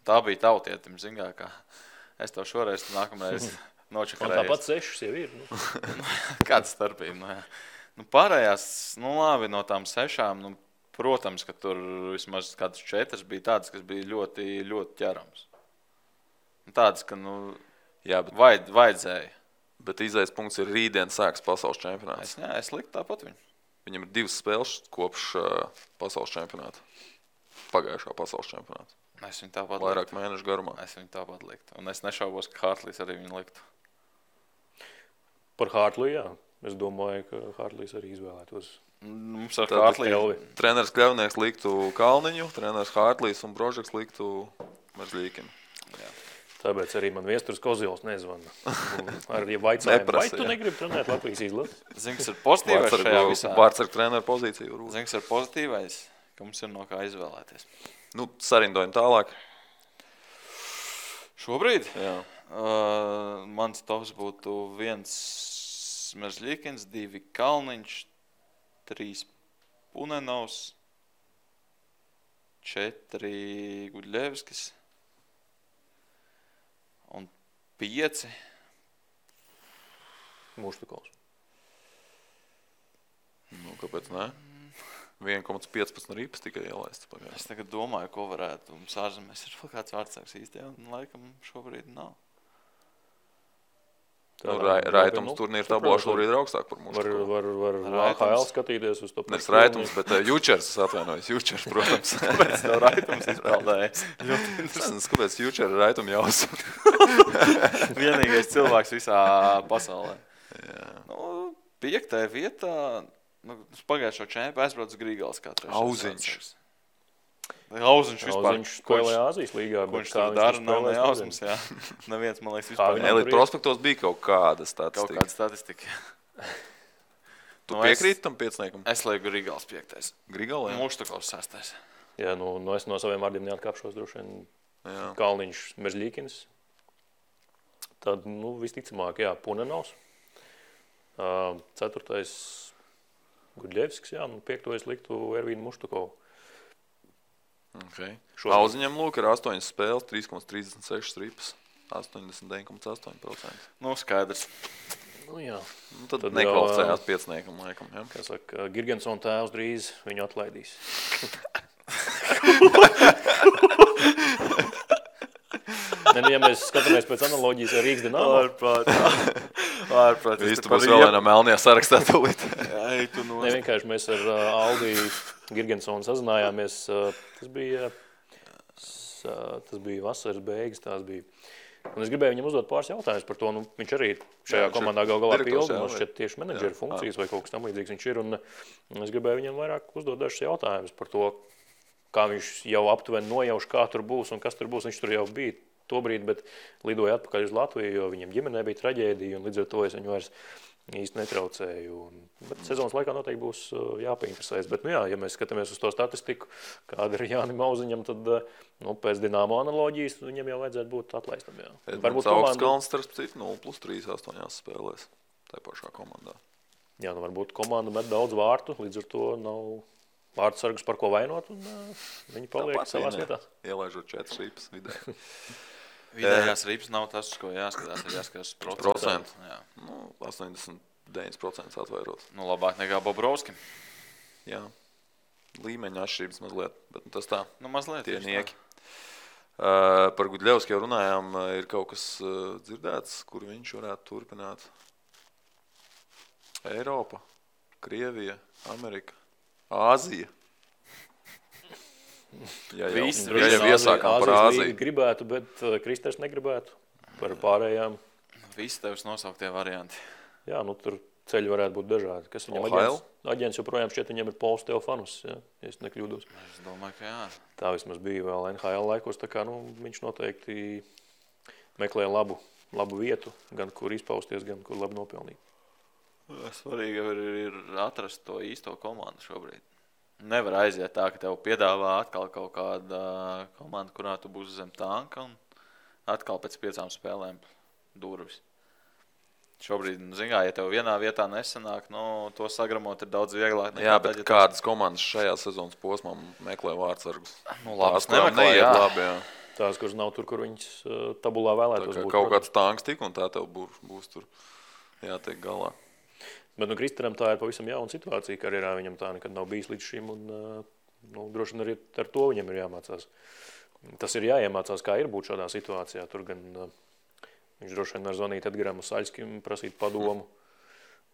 Tā bija tautietim, zingā, kā es to šoreiz nākamreiz nočakarējies. Un tāpat 6 jau ir. Kāda starpība? Pārējās, labi, no tām 6, protams, ka tur vismaz kādas 4 bija tādas, kas bija ļoti, ļoti ķerams. Tādas, ka, jā, bet vajadzēja. Bet izējas punkts ir rītdien sāks pasaules čempionāts. Es liktu tāpat viņu. Viņam ir 2 spēles kopš pasaules čempionāta. Pagājušā pasaules čempionāta. Es viņu tāpat vairāk mēnešu garumā. Es viņu tāpat liktu. Un es nešaubos, ka Hartlīs arī viņu liktu. Par Hartliju, jā. Es domāju, ka Hartlīs arī izvēlētos. Mums ar Hartliju. Treneris Kļavnieks liktu Kalniņu, treneris Hartlīs un Brožeks liktu Merzļīkinu. Jā. Tāpēc arī man Viesturs Kozils nezvana. Arī vaicājumu, vai tu negribi trenēt Latvijas izlasi? Zini, kas ir pozitīvais šajā visā? Vārdsargu treneru pozīciju. Zini, kas ir pozitīvais? Ka mums ir no kā izvēlēties. Sarindojam tālāk. Šobrīd? Jā. Mans tops būtu 1 Merzļīkins, 2 Kalniņš, 3 Punenovs, 4 Gudļevskis. Un 5 Muštukovs. Kāpēc ne? 1,15 ripas tikai ielaists pagājā. Es tagad domāju, ko varētu mums ārzemēs. Ir vēl kāds vārdsargs īsti, laikam šobrīd nav. Raitums turnīra tablā šobrīd ir augstāk par Muštukovu. Var AHL skatīties uz to. Nes Raitums, bet Jučers, atvainojos. Jučers, protams. Kāpēc tev Raitums izpēldējies? Kāpēc Jučer ir Raituma jāuzsver? Vienīgais cilvēks visā pasaulē. Jā. 5. vietā, pagājušo čempu aizbrauc Grīgals kā trešais. Auziņš. Auziņš vispār. Auziņš spēlē Āzijas līgā. Ko viņš tur dara, nav nejausmas, jā. Neviens, man liekas, vispār. Elite prospektos bija kaut kāda statistika. Kaut kāda statistika. Tu piekrīti tam 5? Es lieku Grīgals 5. Grīgals, jā. Muštukovs 6. Jā, es no saviem vārdiem neatkāpšos droši vien. Jā. Kalniņš, Merzļīkins. Tad, visticamāk, jā, Punenovs. 4. Gudļevskis, jā, 5. es liktu Ervīnu Muštukovu. Okay. Auziņam ir 8 spēles, 3,36 ripas, 89,8%. Skaidrs. Jā. Tad nekvalificējās 5. laikam, jā. Kā saka, Girgensona tēvs drīz viņu atlaidīs. Ja mēs skatāmies pēc analoģijas ar Rīgas Dinamo. Ārprāt. Viss tu būs vēl vienā melnajā sarakstā tūlīt. Vienkārši mēs ar Aldi Girgensonu sazinājāmies. Tas bija tas bija vasaras beigas, tās bija. Un es gribēju viņam uzdot pāris jautājumus par to. Nu, viņš arī šajā komandā galā pilda, man šķiet tieši menedžera funkcijas vai kaut kas tam līdzīgs viņš ir. Un es gribēju viņam vairāk uzdot dažus jautājumus par to, kā viņš jau aptuveni nojauš, kā tur būs un kas tur būs. Viņš tur jau bija tobrīd, bet lidoja atpakaļ uz Latviju, jo viņam ģimenē bija traģēdija un līdz ar to es viņu vairs īsti netraucēju. Bet sezonas laikā noteikti būs jāpainteresēs. Bet, nu jā, ja mēs skatāmies uz to statistiku, kāda ir Jānim Auziņam, tad pēc Dinamo analoģijas viņam jau vajadzētu būt atlaistam. Varbūt Augstkalns starp citu 0+3 8 spēlēs tajā pašā komandā. Jā, varbūt komanda met daudz vārtu, līdz ar to nav vārdsargus par ko vainot, un viņi paliek savās vietās. Ielaižot 4 ripas vidē. Vidējās ripas nav tas, ko jāskatās, ir jāskatās procentu. 89% atvairot. Labāk nekā Bobrovskim. Jā, līmeņa atšķirības mazliet, bet tas tā. Mazliet. Tie nieki. Par Gudļevski jau runājām, ir kaut kas dzirdēts, kur viņš varētu turpināt. Eiropa, Krievija, Amerika, Āzija. Jā, jau iesākām par Āziju. Gribētu, bet Kristers negribētu par pārējām. Visi tevis nosauktie varianti. Jā, tur ceļi varētu būt dažādi. Kas viņam aģents joprojām šķiet, viņam ir Pols Teofanus, ja es nekļūdos. Es domāju, ka jā. Tā vismaz bija vēl NHL laikos, tā kā viņš noteikti meklē labu vietu, gan kur izpausties, gan kur labi nopelnīt. Svarīgi ir atrast to īsto komandu šobrīd. Nevar aiziet tā, ka tev piedāvā atkal kaut kāda komanda, kurā tu būsi zem tanka un atkal pēc 5 spēlēm durvis. Šobrīd, ja tev vienā vietā nesanāk, to sagramot ir daudz vieglāk. Jā, bet kādas komandas šajā sezonas posmā meklē vārdsargus? Labas nemeklē, jā. Labi, jā. Tās, kuras nav tur, kur viņas tabulā vēlētos būt. Kaut kāds tanks tik un tā tev būs tur jātiek galā. Bet Kristeram tā ir pavisam jauna situācija karjerā. Viņam tā nekad nav bijis līdz šim, un droši vien arī ar to viņam ir jāmācās. Tas ir jāiemācās, kā ir būt šādā situācijā. Tur gan viņš droši vien var zvanīt Edgaram Saļskim, prasīt padomu.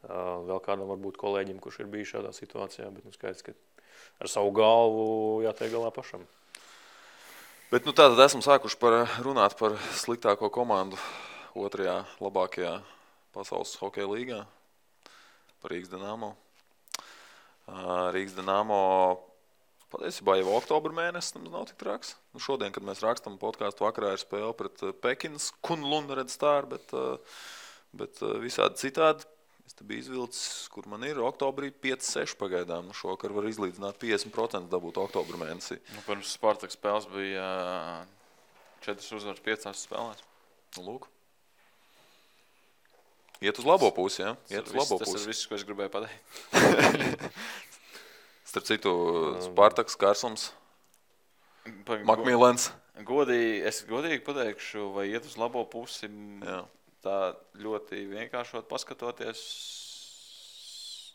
Vēl kādam varbūt kolēģim, kurš ir bijis šādā situācijā, bet skaidrs, ka ar savu galvu jātiek galā pašam. Bet tātad esam sākuši runāt par sliktāko komandu 2. labākajā pasaules hokeja līgā. Par Rīgas Dinamo. Rīgas Dinamo patiesībā jau oktobra mēnesis nav tik traks. Šodien, kad mēs rakstam podkāstu, vakarā ir spēle pret Pekinas Kunlun Red Star, bet visādi citādi. Es te biju izvilcis, kur man ir oktobrī 5-6 pagaidām. Šokar var izlīdzināt 50% dabūt oktobra mēnesī. Pirms Spartak spēles bija 4 uzvaras 5 spēlēs. Lūk. Iet uz labo pusi, ja? Tas ir viss, ko es gribēju pateikt. Starp citu, Spartaks, Kārsums, Makmīlens. Es godīgi pateikšu, vai iet uz labo pusi, tā ļoti vienkāršot paskatoties.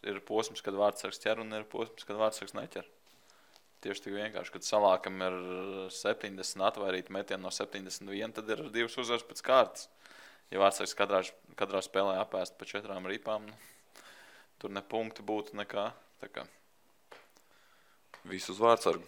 Ir posms, kad vārdsargs ķer, un ir posms, kad vārdsargs neķer. Tieši tik vienkārši, kad Salākam ir 70 atvairīti metieni no 71, tad ir 2 uzvaras pēc kārtas. Ja vārdsargs katrā spēlē apēst pa 4 ripām, tur ne punkti būtu nekā. Visu uz vārdsargu.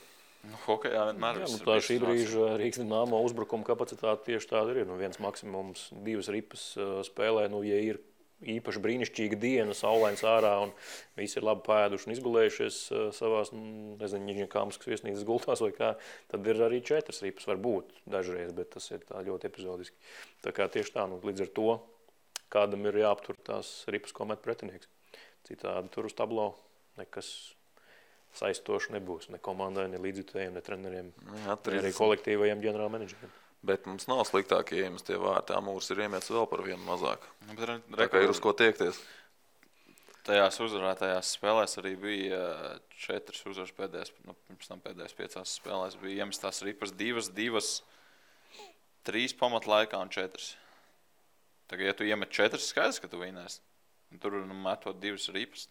Hokejā vienmēr viss ir. Tā šī brīža Rīgas Dinamo uzbrukuma kapacitāte tieši tāda ir. Viens maksimums 2 ripas spēlē, ja ir īpaši brīnišķīga diena, saulains ārā un visi ir labi pēduši un izgulējušies savās, Nižņakāmskas viesnīcas gultās vai kā, tad ir arī 4 ripas var būt dažreiz, bet tas ir tā ļoti epizodiski. Tā kā tieši tā, līdz ar to kādam ir jāaptur tās ripas, ko met pretinieks. Citādi tur uz tablo nekas saistoši nebūs, ne komandai, ne līdzjutējiem, ne treneriem, ne arī kolektīvajiem ģenerālmenedžeriem. Bet mums nav sliktāk ieejas tie vārti. Amūrs ir iemetis vēl par vienu mazāk. Tā kā ir uz ko tiekties. Tajās uzvarētajās spēlēs arī bija 4 uzvaras pēdējās, pirms tam pēdējās 5 spēlēs bija iemestās ripas 2, 3 pamatlaikā un 4. Tagad, ja tu iemet 4, skaidrs, ka tu vinēsi. Tur metot 2 ripas,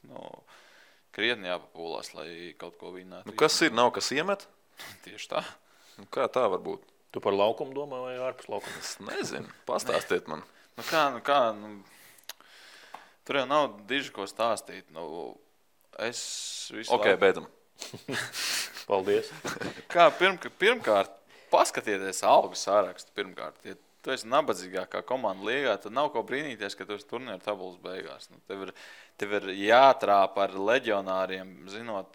krietni jāpapūlās, lai kaut ko vinētu. Kas ir? Nav kas iemet? Tieši tā. Kā tā var būt? Tu par laukumu domā vai ārpus laukuma? Es nezinu. Pastāstiet man. Kā? Tur jau nav diži ko stāstīt. Beidzam. Paldies. Kā pirmkārt, paskatieties algu sārakstu pirmkārt. Ja tu esi nabadzīgākā komanda līgā, tad nav ko brīnīties, ka tu esi turnīra tabulas beigās. Nu, tev ir jātrāpa ar leģionāriem, zinot,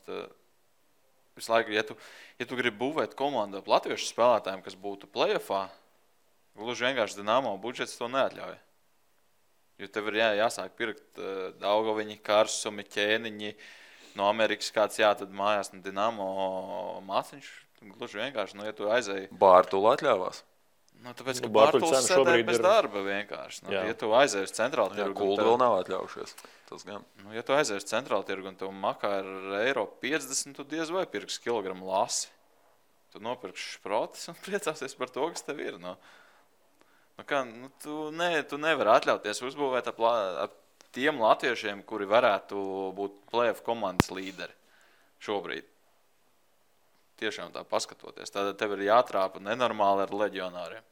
visu laiku, ja tu gribi būvēt komandu ap latviešu spēlētājiem, kas būtu play-offā, gluži vienkārši Dinamo budžets to neatļauj. Jo tev ir jāsāk pirkt Daugaviņi, Karsumi, Ķēniņi, no Amerikas kāds tad mājās no Dinamo māciņš. Gluži vienkārši, ja tu aizēji... Bārtula atļāvās. Tāpēc, ka Bārtuls sēdēja bez darba vienkārši. Ja tu aizēji uz centrālu tirgu... Kulda vēl nav atļaujušies. Tas gan. Ja tu aizēji uz centrālu tirgu un tev makā ir €50, tu diez vai pirks kilogramu lasi. Tu nopirksi šprotis un priecāsies par to, kas tev ir. Tu nevari atļauties uzbūvēt ap tiem latviešiem, kuri varētu būt play-off komandas līderi šobrīd. Tiešām tā paskatoties. Tad tev ir jātrāpa nenormāli ar leģionāriem.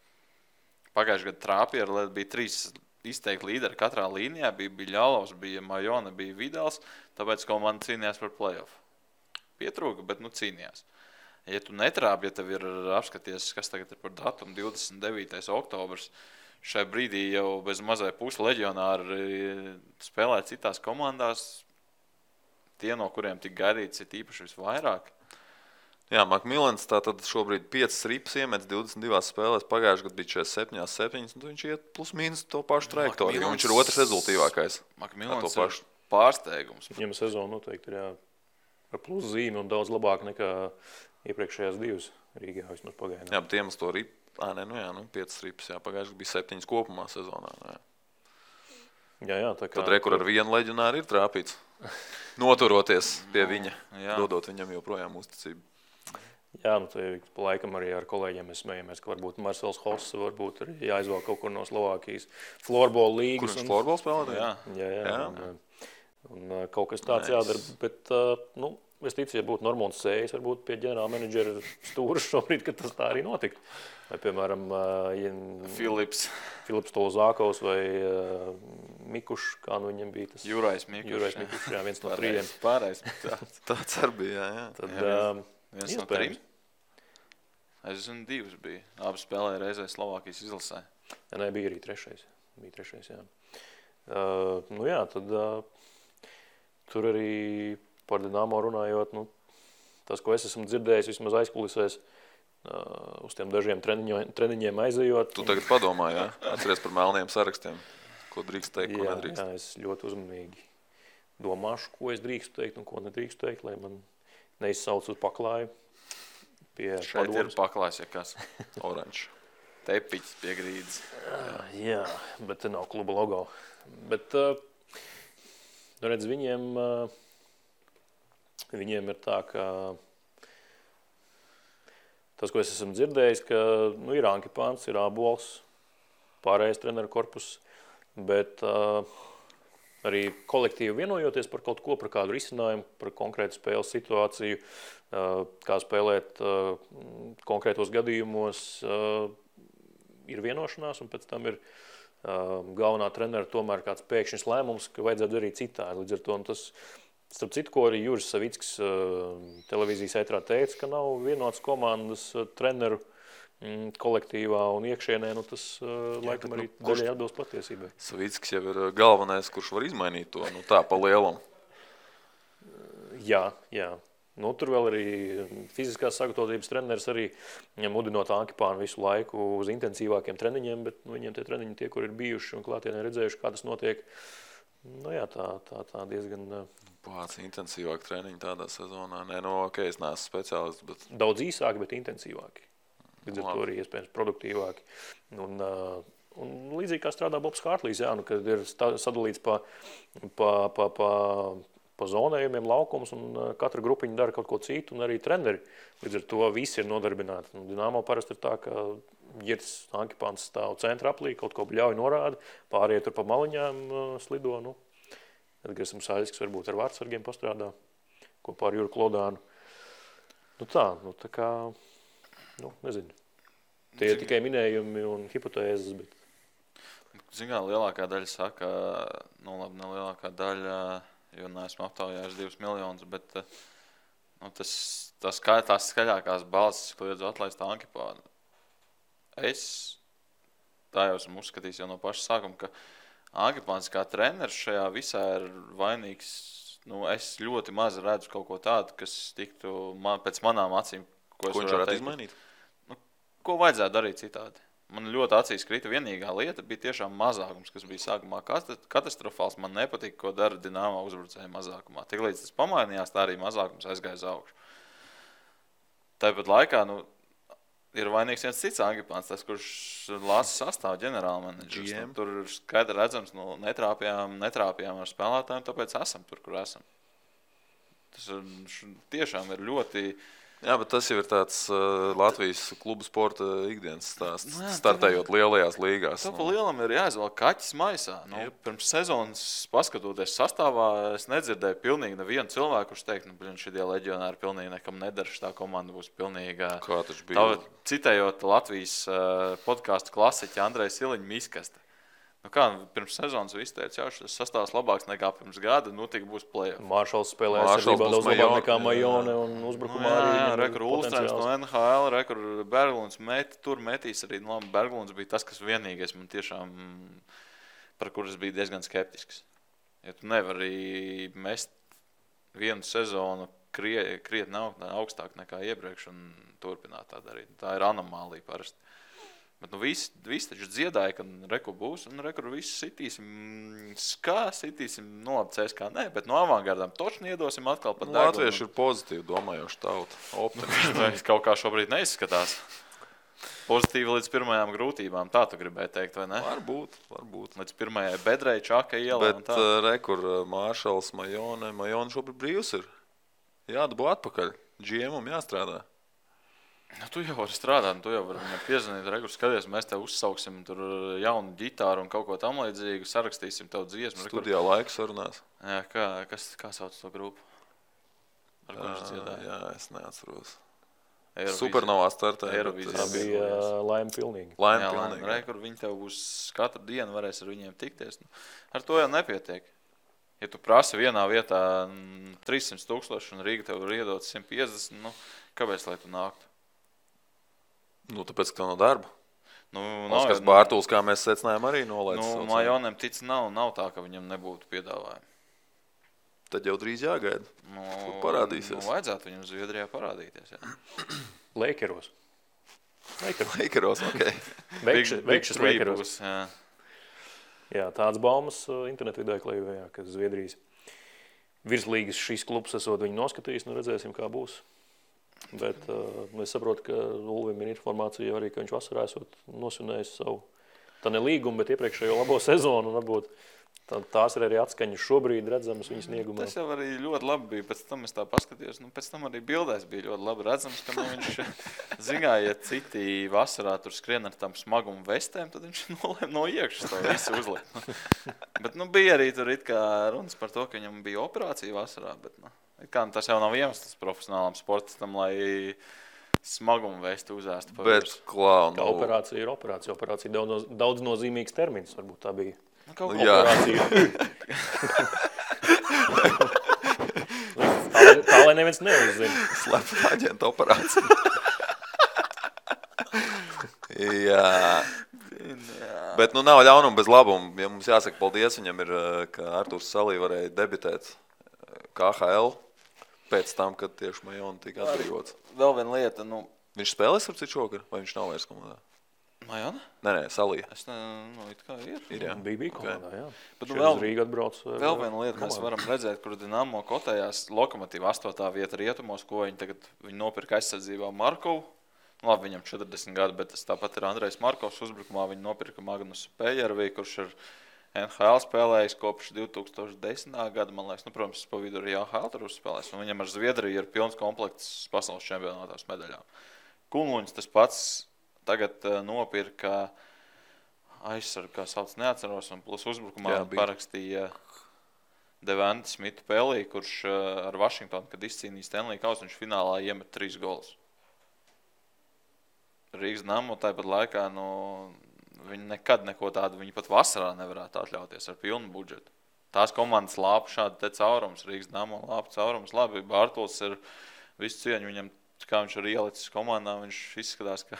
Pagājušajā gadā trāpīja, bija 3 izteikti līderi katrā līnijā. Bija Biļalovs, bija Majona, bija Vidals, tāpēc komanda cīnījās par play-off. Pietrūka, bet cīnījās. Ja tu netrāpi, ja tev ir apskaties, kas tagad ir par datumu 29. oktobrs, šai brīdī jau bez mazai pusi leģionāri spēlē citās komandās, tie, no kuriem tik gaidīts, ir īpaši visvairāk. Jā, Makmilans tātad šobrīd 5 ripas iemets 22 spēlēs, pagājušajā gadā bija 47, un viņš iet plus mīnus to pašu trajektoriju, jo viņš ir otrs rezultīvākais. Makmilans ir pārsteigums. Viņam sezona noteikti ir ar plus zīmi un daudz labāk nekā iepriekšējās 2 Rīgā vismaz pagaidām. Jā, bet iemest to ripu, 5 ripas, pagājušajā bija 7 kopumā sezonā. Jā, tā kā... Tad rekur ar vienu leģionāru ir trāpīts, noturoties pie viņa, dodot viņam joprojām uzticību. Jā, pa laikam arī ar kolēģiem mēs smējamies, ka varbūt Marcels Hoss varbūt arī jāizvēl kaut kur no Slovākijas floorball līgas. Kur viņš floorball spēlē? Jā. Un kaut kas tāds jādara, bet, es ticu, ja būtu Normons Sējs, varbūt pie ģenerāla menedžera stūras šobrīd, ka tas tā arī notiktu. Vai, piemēram, Filips Tolzākovs vai Mikušs, kā viņam bija tas? Jurais Mikušs, jā, viens no 3. Pārējais. Tāds arī bija, jā. Tad, viens no 3? Es zinu, 2 bija. Abi spēlēja reizē Slovākijas izlasē. Jā, bija arī 3. Bija 3, jā. Tad tur arī par Dinamo runājot, tas, ko es esmu dzirdējis vismaz aizkulisēs, uz tiem dažiem treniņiem aizejot. Tu tagad padomā, jā? Atceries par melniem sarakstiem, ko drīkst teikt, ko nedrīkst. Jā, es ļoti uzmanīgi domāšu, ko es drīkstu teikt un ko nedrīkstu teikt, lai man neizsauc uz paklāju pie šeit padomas. Ir paklājs, ja kas oranžs. Tepiķis pie grīdas. Jā, bet te nav kluba logo. Bet, redz, viņiem ir tā, ka tas, ko es esmu dzirdējis, ka ir Ankipāns, ir Ābols, pārējais treneru korpus, bet arī kolektīvi vienojoties par kaut ko, par kādu risinājumu, par konkrētu spēles situāciju, kā spēlēt konkrētos gadījumos, ir vienošanās, un pēc tam ir galvenā trenera tomēr kāds pēkšņs lēmums, ka vajadzētu darīt citādi. Līdz ar to tas, starp citu, ko arī Juris Savickis televīzijas ētrā teica, ka nav vienots komandas treneru kolektīvā un iekšienē, tas laikam arī daļai atbilst patiesībai. Savickis jau ir galvenais, kurš var izmainīt to, tā pa lielam. Jā. Tur vēl arī fiziskās sagatavotības treneris arī mudinot Ankipānu visu laiku uz intensīvākiem treniņiem, bet viņiem tie treniņi tie, kur ir bijuši un klātienē redzējuši, kā tas notiek, tā diezgan... Pāc intensīvāk treniņi tādā sezonā. Es neesmu speciālists, bet... Daudz īsāki, bet intensīvāki. Līdz ar to arī iespējams produktīvāki. Un līdzīgi kā strādā Bobs Hārtlīs, kad ir sadalīts pa zonējumiem laukums, un katra grupiņa dara kaut ko citu, un arī treneri. Līdz ar to visi ir nodarbināti. Dinamo parasti ir tā, ka Girts Ankipāns stāv centra aplī, kaut ko ļauj norāda, pārējie tur pa maliņām slido. Edgars Saļskis varbūt ar vārdsargiem pastrādā kopā ar Juru Klodānu. Tā kā, nezinu. Tie ir tikai minējumi un hipotēzes, bet... Zinām, lielākā daļa saka, ne lielākā daļa, jo neesmu aptaujājis 2 miljonus, bet tās skaļākās balsis kliedz atlaist Ankipānu. Tā jau esmu uzskatījis jau no paša sākuma, ka Ankipāns kā treneris šajā visā ir vainīgs. Es ļoti maz redzu kaut ko tādu, kas tiktu pēc manām acīm, ko viņš varētu izmainīt. Ko vajadzētu darīt citādi? Man ļoti acīs krita vienīgā lieta bija tiešām mazākums, kas bija sākumā katastrofāls. Man nepatika, ko dara Dinamo uzbrucēja mazākumā. Tiklīdz tas pamainījās, tā arī mazākums aizgāja uz augšu. Tāpat laikā, ir vainīgs viens cits Ankipāns, tas, kurš lāsa sastāv ģenerālmenedžers. Tur ir skaidri redzams, netrāpjām ar spēlētājiem, tāpēc esam tur, kur esam. Tas tiešām ir ļoti... Jā, bet tas jau ir tāds Latvijas klubu sporta ikdienas stāsts, startējot lielajās līgās. Pa lielam ir jāizvēl kaķis maisā. Pirms sezonas paskatoties sastāvā, es nedzirdēju pilnīgi nevienu cilvēku, kurš teikt, šitie leģionāri pilnīgi nekam nedara, tā komanda būs pilnīga. Kā taču bija? Citējot Latvijas podcastu klasiķi Andreja Siliņa miskaste. Pirms sezonas viss teica, šis sastāvs labāks nekā pirms gada, tik būs play-off. Maršals spēlē aizsardzībā daudz labāk nekā Majone un uzbrukumā arī. Rekur Ulstrēms no NHL, rekur Berglunds metīs arī. Berglunds bija tas, kas vienīgais man tiešām, par kuras bija diezgan skeptisks. Ja tu nevari mest vienu sezonu krietni augstāk nekā iepriekš un turpināt tā darīt. Tā ir anomālija parasti. Bet visi taču dziedāja, ka reku būs, un reku visu sitīsim, labi CSKA, nē, bet no avangardām točni iedosim atkal pat degunu. Latvieši ir pozitīvi domājoši tauta, optimisti. Kaut kā šobrīd neizskatās. Pozitīvi līdz pirmajām grūtībām, tā tu gribēji teikt, vai ne? Varbūt. Līdz pirmajai bedrei, čaka ielā un tā. Bet rekur Maršals, Majone šobrīd brīvs ir. Jādabū atpakaļ, GM-um jāstrādā. Tu jau vari strādāt, tu jau vari viņam piezvanīt, rekur skaties, mēs tev uzsauksim tur jaunu ģitāru un kaut ko tam līdzīgu, sarakstīsim tev dziesmu. Studijā laiku sarunās. Jā, kā sauc to grupu? Ar ko viņš dziedāja? Jā, es neatceros. Supernovā startē. Tā bija laime pilnīgi. Rekur viņi tev būs katru dienu varēs ar viņiem tikties. Ar to jau nepietiek. Ja tu prasi vienā vietā 300,000 un Rīga tev ir iedot 150, kāpēc lai tu nāktu? Tāpēc, ka tev nav darba. Oskars Nav, Bārtuls, kā mēs secinājām, arī nolaidis. Majonem tic nav tā, ka viņam nebūtu piedāvājumi. Tad jau drīz jāgaida. Parādīsies. Vajadzētu viņam Zviedrijā parādīties, jā. Lakeros, ok. Veikšas Lakeros. Jā. Jā, tāds baumas internetu vidē klejojā, ka Zviedrijas virslīgas šīs klubs esot viņu noskatījis, redzēsim, kā būs. Bet es saprotu, ka Ulvim ir informācija arī, ka viņš vasarā esot nosvinējis savu, tā ne līgumu, bet iepriekšējo labo sezonu, un varbūt tās ir arī atskaņas šobrīd redzamas viņas sniegumā. Tas jau arī ļoti labi bija, pēc tam es tā paskatījos, pēc tam arī bildēs bija ļoti labi redzams, ka viņš zināja, ja citi vasarā tur skrien ar tām smagumu vestēm, tad viņš nolēma no iekšas to visu uzlikt. Bet bija arī tur it kā runas par to, ka viņam bija operācija vasarā, bet tas jau nav iemesls profesionālam sportistam, lai smagumu vēstu uzēstu pa virsmu. Kā operācija ir operācija. Operācija daudz nozīmīgs termins, varbūt tā bija. Operācija. Tā, lai neviens neuzzina. Slepena aģenta operācija. Jā. Bet nav ļaunuma bez labuma. Ja mums jāsaka paldies viņam ir, ka Arturs Salī varēja debitēt KHL. Pēc tam, kad tieši Majona tika atbrīvots. Vēl viena lieta, Viņš spēlēs ar citu šogad, vai viņš nav vairs komandā? Majona? Nē, Salija. Es it kā ir. Jā. Bija komandā, jā. Bet Rīga atbrauc. Vēl viena lieta, mēs varam redzēt, kur Dinamo kotējās Lokomotīva 8. vieta rietumos, ko viņi nopirka aizsardzībā Markovu. Labi, viņam 40 gadu, bet tas tāpat ir Andrejs Markovs uzbrukumā. Viņi nopirka Magnusu Pejervī, kurš ir NHL spēlējis kopš 2010. gada, man liekas, protams, pa vidu arī AHL tur uzspēlējis, un viņam ar Zviedriju ir pilns komplekts pasaules čempionātās medaļām. Kunluņs tas pats tagad nopirka aizsargu, kā sauc, neatceros, un plus uzbrukumā parakstīja Devante Smitu Pelī, kurš ar Vašingtonu, kad izcīnīja Stanley Kausu, viņš finālā iemet 3 golus. Rīgas Dinamo tāpat laikā, viņi nekad neko tādu, viņi pat vasarā nevarētu atļauties ar pilnu budžetu. Tās komandas lāpa šādi te caurums, Rīgas Dinamo lāpa caurums. Labi, Bārtuls ir visu cieņu viņam, kā viņš ir ielicis komandā, viņš izskatās, ka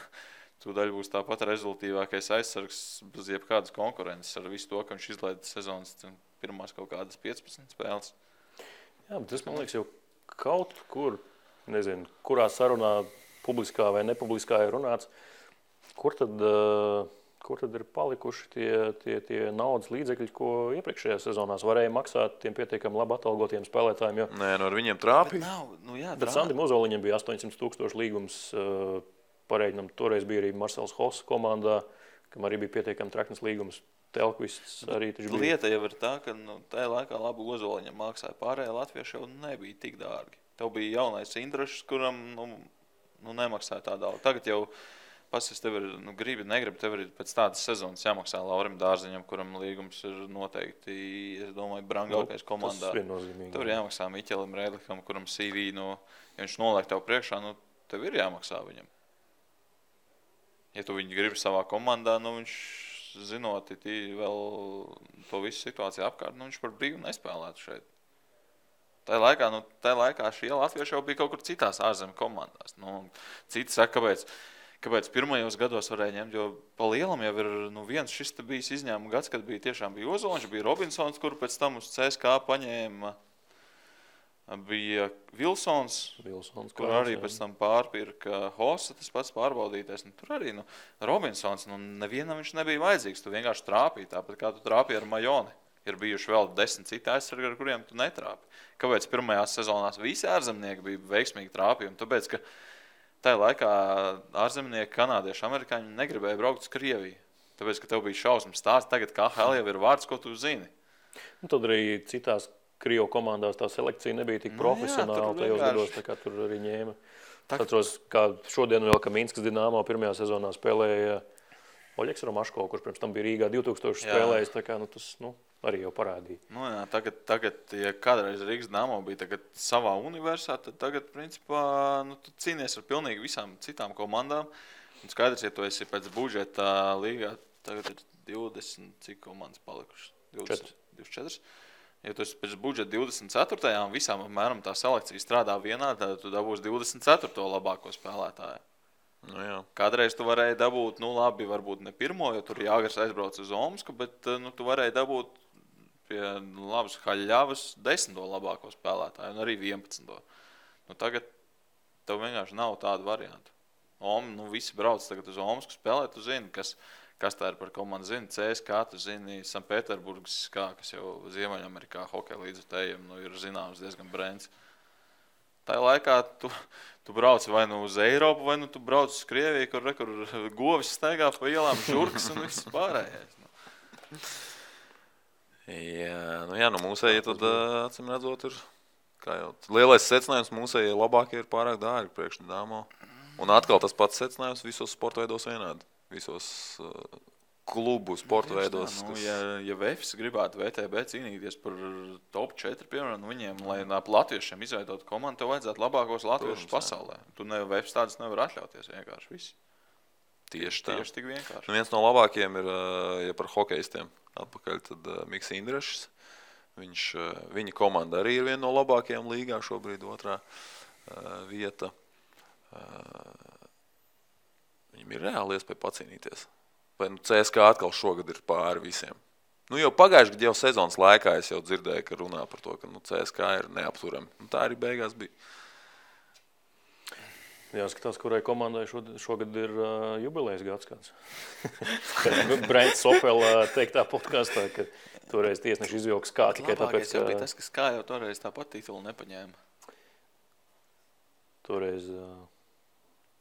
tūdaļ būs tāpat rezultīvākais aizsargs bez jebkādas konkurences ar visu to, ka viņš izlaida sezonas pirmās kaut kādas 15 spēles. Jā, bet tas, man liekas, jau kaut kur, nezinu, kurā sarunā publiskā vai nepubliskā ir runāts, kur tad ir palikuši tie naudas līdzekļi, ko iepriekšējās sezonās varēja maksāt tiem pietiekami labi atalgotiem spēlētājiem? Nē, ar viņiem trāpīja. Bet Sandim Ozoliņam bija 800,000 līgums. Pareiģinam, toreiz bija arī Marcels Hoss komandā, kam arī bija pietiekami traknes līgums. Telkvists arī taču bija. Lieta jau ir tā, ka tajā laikā labi Ozoliņam maksāja. Pārējie latvieši jau nebija tik dārgi. Tev bija jaunais Indrašs, kuram nemaksāja tā daudz. Tagad jau pasies, tev ir, negribi, tev ir pēc tādas sezonas jāmaksā Laurim Dārziņam, kuram līgums ir noteikti, es domāju, brangākais komandā. Tas viennozīmīgi. Tev ir jāmaksā Miķelim Rēdlikam, kuram CV, ja viņš noliek tev priekšā, tev ir jāmaksā viņam. Ja tu viņu gribi savā komandā, viņš zinot, vēl to visu situāciju apkārt, viņš par brīvu nespēlētu šeit. Tajā laikā šie latvieši jau bija kaut kur citās ārzemju komandās. Citi saka, kāpēc pirmajos gados varēja ņemt, jo pa lielam jau ir viens šis te bijis izņēmuma gads, kad tiešām bija Ozoliņš, bija Robinsons, kuru pēc tam uz CSKA paņēma, bija Vilsons, kur arī pēc tam pārpirka Hossa, tas pats pārbaudītais. Tur arī Robinsons, nevienam viņš nebija vajadzīgs, tu vienkārši trāpīji, tāpat kā tu trāpīji ar Majoni. Ir bijuši vēl 10 citi aizsargi, ar kuriem tu netrāpi. Kāpēc pirmajās sezonās visi ārzemnieki bija veiksmīgi trāpījumi? Tāpēc, ka tajā laikā ārzemnieki, kanādieši, amerikāņi negribēja braukt uz Krieviju. Tāpēc, ka tev bija šausmas stāsts, tagad KHL jau ir vārds, ko tu zini. Tad arī citās Krievu komandās tā selekcija nebija tik profesionāla tajos gados, tā kā tur arī ņēma. Atceros, kā šodien vēl, ka Minskas Dinamo pirmajā sezonā spēlēja Oļeks Romaško, kurš pirms tam bija Rīgā 2000 spēlējis, tā kā tas arī jau parādīja. Tagad, ja kādreiz Rīgas Dinamo bija savā universā, tad tagad, principā, tu cīnies ar pilnīgi visām citām komandām. Un skaidrs, ja tu esi pēc budžeta līgā, tagad ir 20, cik komandas palikušas? 24. Ja tu esi pēc budžeta 24. un visām apmēram tā selekcija strādā vienā, tad tu dabūsi 24. labāko spēlētāju. Kādreiz tu varēji dabūt, labi, varbūt ne pirmo, jo tur Jāgars aizbrauc uz Omsku, bet tu varēji dabūt pie labas Haļļavas 10. labāko spēlētāju un arī 11. Tagad tev vienkārši nav tādu variantu. Visi brauc tagad uz Omsku spēlēt, tu zini, kas tā ir par komandu, zini CSKA, tu zini Sanpēterburgas, kas jau Ziemeļamerikā hokeja līdzutējiem ir zināms diezgan brēns. Tajā laikā tu brauc vai uz Eiropu, vai tu brauc uz Krieviju, kur govis staigā pa ielām, žurkas un viss pārējais. Jā, mūsējie tad, acīm redzot, ir, kā jau lielais secinājums, mūsējie labākie ir pārāk dārgi priekš Dinamo. Un atkal tas pats secinājums visos sporta veidos vienādi. Visos klubu sporta veidos. Ja VFS gribētu VTB cīnīties par top 4, piemēram, viņiem, lai latviešiem izveidot komandu, tev vajadzētu labākos latviešus pasaulē. Tu VFS tādas nevar atļauties vienkārši visi. Tieši tik vienkārši. Viens no labākajiem ir, ja par hokeistiem atpakaļ, tad Miks Indrašs. Viņa komanda arī ir viena no labākajām līgā šobrīd, otrā vieta. Viņam ir reāli iespēja pacīnīties. Vai CSKA atkal šogad ir pāri visiem. Jau pagājuši gadu jau sezonas laikā es jau dzirdēju, ka runā par to, ka CSKA ir neapturami. Tā arī beigās bija. Jāskatās, kurai komandai šogad ir jubilejas gads kāds. Brents Sopela teiktā podkastā, ka toreiz tiesneši izvilka SKA tikai tāpēc, ka... Labākais tas, ka SKA jau toreiz tāpat titulu nepaņēma. Toreiz...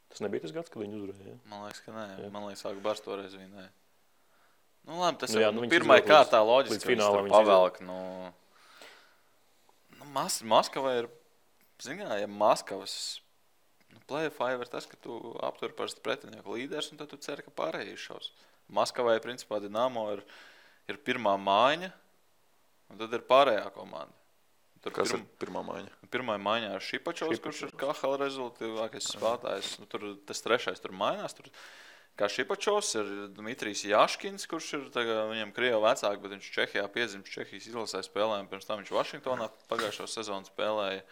Tas nebija tas gads, kad viņi uzvarēja? Man liekas, ka nē. Jā. Man liekas, ka Bars toreiz vinēja. Labi, tas ir pirmai kārtā loģiski, ka viņš tur pavelk. Maskava ir, ja Maskavas play-offā ir tas, ka tu aptur parasti pretinieku līderis, un tad tu ceri, ka pārējie šaus. Maskavai, principā, Dinamo ir pirmā mājiņa, un tad ir pārējā komanda. Kas ir pirmā maiņa? Pirmā maiņā ir Šipačovs, kurš ir KHL rezultātīvākais spēlētājs. Tas trešais tur mainās. Kā Šipačovs ir Dmitrijs Jaškins, kurš ir viņam Krievu vecāki, bet viņš Čehijā piedzimts Čehijas izlasē spēlēm. Pirms tam viņš Vašingtonā pagājušo sezonu spēlēja.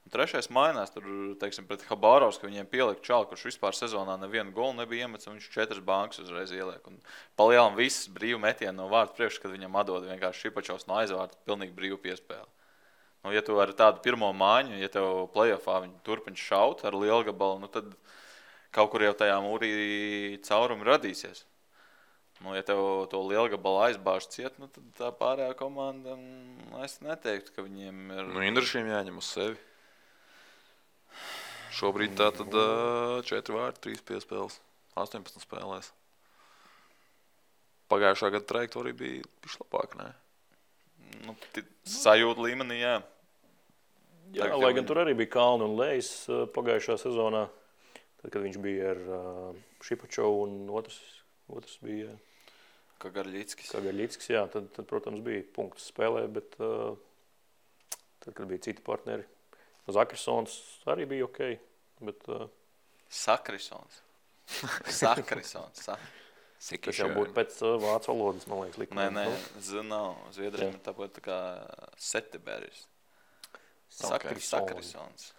Trešais mainās, tur, teiksim, pret Habārovs, ka viņiem pielika čalu, kurš vispār sezonā nevienu golu nebija iemets, un viņš 4 bankas uzreiz ieliek. Un palielam viss brīvu metienu no vārta priekš, kad viņam atdod vienkārši Šipačovs no aizvārta, pilnīgi brīvu piespēli. Nu, ja tu ar tādu pirmo māņu, ja tev play-offā viņi turpina šaut ar lielgabalu, nu tad kaut kur jau tajā mūrī caurumi radīsies. Nu, ja tev to lielgabalu aizbāž ciet, nu tad tā pārējā komanda, es neteiktu, ka viņiem ir... Nu, Indrašiem jāņem uz sevi. Šobrīd tā tad 4 vārti, 3 piespēles, 18 spēlēs. Pagājušā gada trajektorija bija pišķi labāk, ne? Nu, sajūta līmenī, jā. Jā, lai gan tur arī bija kalni un lejas pagājušā sezonā, tad, kad viņš bija ar Šipačovu un otrs bija... Kagarļickis, jā, tad, protams, bija punkts spēlē, bet tad, kad bija citi partneri, Zakrisons arī bija okei, bet... Sakrisons. Tas jau būtu pēc vācu valodas, man liekas, likuma. Nē, nav. Zviedriem ir tāpat tā kā Seteberis. Sakrisons.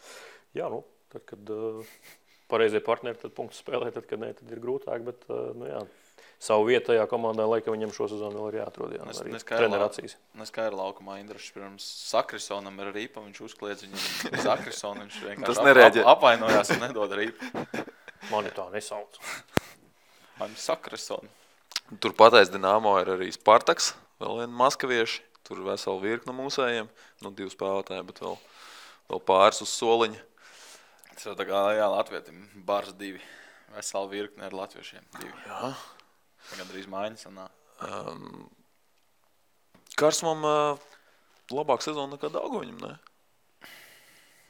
Jā, nu, tad, kad pareizie partneri, tad punktu spēlē, tad, kad ne, tad ir grūtāk, bet, nu jā, savu vietu tajā komandā, laikam viņam šo sezonu vēl ir jāatrod, jā, arī treneracijas. Neskaidra laukumā Indrašs pirms Sakrisonam ir rīpa, viņš uzkliedz viņam Sakrisonu, viņš vienkārši apvainojās un nedod rīpu. Mani tā nesauc. Mani Sakrisonu. Tur pateic Dinamo ir arī Spartaks, vēl viena maskavieši, tur vesela virkna mūsējiem, nu 2 spēlētāji, bet vēl pāris uz soliņa. Tas jau tā kā, jā, latvietim, bars 2, vesela virkne ar latviešiem 2. Jā. Gan drīz mājiņas un nā. Karsumam labāk sezona nekā Daugoviņam, ne?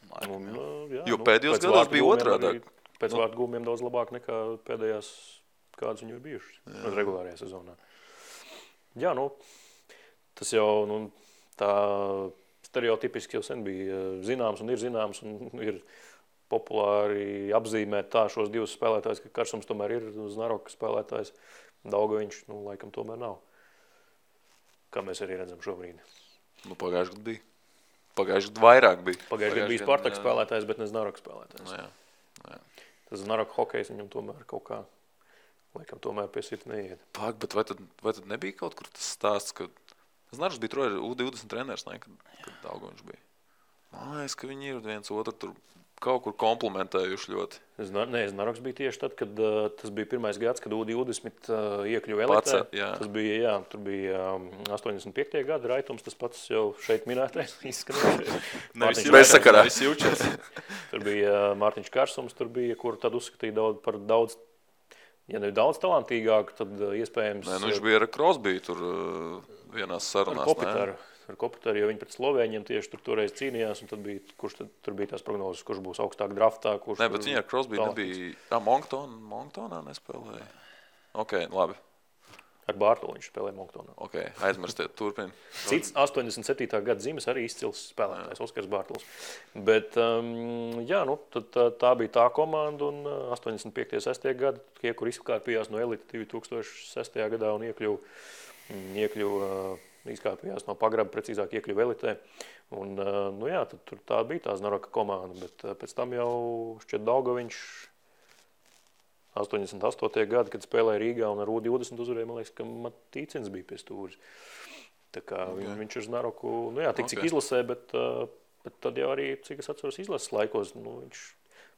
Jā, jo pēdējos gados bija otrādāk. Pēc vārtu gūmiem daudz labāk nekā pēdējās, kādas viņi ir bijušas regulārajā sezonā. Jā, nu, tas jau tā stereotipiski jau sen bija zināms un ir populāri apzīmēt tā šos 2 spēlētājus, ka Karsums tomēr ir Znaroka spēlētājs. Daugoviņš, laikam tomēr nav. Kā mēs arī redzam šobrīd. Nu, pagājuši gadu bija. Pagājuši gadu vairāk bija. Pagājuši gadu bija Spartaka spēlētājs, bet ne Znaroka spēlētājs. Jā. Tas Znaroka hokejs viņam tomēr kaut kā, laikam tomēr pie sirds neiet. Bet vai tad nebija kaut kur tas stāsts, ka Znaroks bija U20 treneris, ne, kad Daugoviņš bija? Man liekas, ka viņi ir viens otru tur kaut kur komplementējuši ļoti. Znaroks bija tieši tad, kad tas bija pirmais gads, kad U20 iekļuva elitē. Tas bija, jā, tur bija 85. gada Raitums, tas pats jau šeit minētais Bezsakarā. Tur bija Mārtiņš Karsums, tur bija, kur tad uzskatīja par daudz, ja ne daudz talantīgāku, tad iespējams... Nē, viņš bija ar Crosby tur vienās sarunās. Ar Kopitaru, jo viņi pret Slovēņiem tieši toreiz cīnījās, un tad bija, tur bija tās prognozes, kurš būs augstāk draftā, kurš... Nē, bet viņi ar Crosby nebija... Monctonā nespēlēja? Ok, labi. Ar Bārtolu viņš spēlēja Monctonā. Ok, aizmirstiet, turpini. Cits 87. gada zīmes arī izcils spēlētājs, Oskars Bārtols. Bet, jā, nu, tā bija tā komanda, un 85. 6. gada, tie, kur izkārpījās no elita 2006. gadā un izkāpījās no pagraba, precīzāk iekļuva elitē. Un, nu jā, tad tur tā bija tā Znaroka komanda, bet pēc tam jau šķiet Daugoviņš 88. gada, kad spēlēja Rīgā un ar U20 uzvarēja, man liekas, ka Matīcins bija pie stūris. Tā kā viņš ar Znaroku, nu jā, cik izlasē, bet tad jau arī, cik es atceros izlases laikos, nu viņš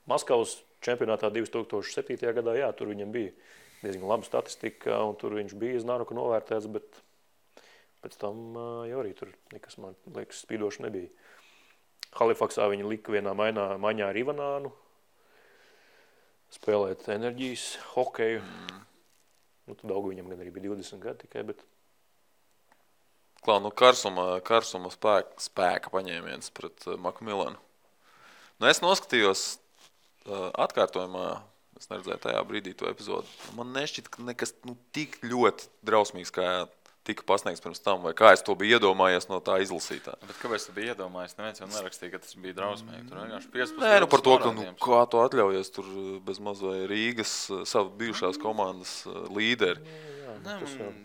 Maskavas čempionātā 2007. gadā, jā, tur viņam bija diezgan laba statistika, un tur viņš bija Znaroku novērtēts, bet pēc tam jau arī tur nekas, man liekas, spīdoši nebija. Halifaksā viņi lika vienā maiņā ar Ivanānu, spēlēt enerģijas, hokeju. Nu, tad Daugoviņam gan arī bija 20 gadi tikai, bet... Klau, nu Karsuma spēka paņēmiens pret Makmilanu. Nu, es noskatījos atkārtojumā, es neredzēju tajā brīdī to epizodu. Man nešķita, ka nekas tik ļoti drausmīgs, kā tika pasniegts pirms tam, vai kā es to biju iedomājies no tā izlasītā. Bet kāpēc tu biji iedomājies? Neviens jau nerakstīja, ka tas bija drausmīgi. Tur vienkārši 15. Nē, nu par to, ka kā to atļaujies tur bez maz vai Rīgas savu bijušās komandas līderi. Jā,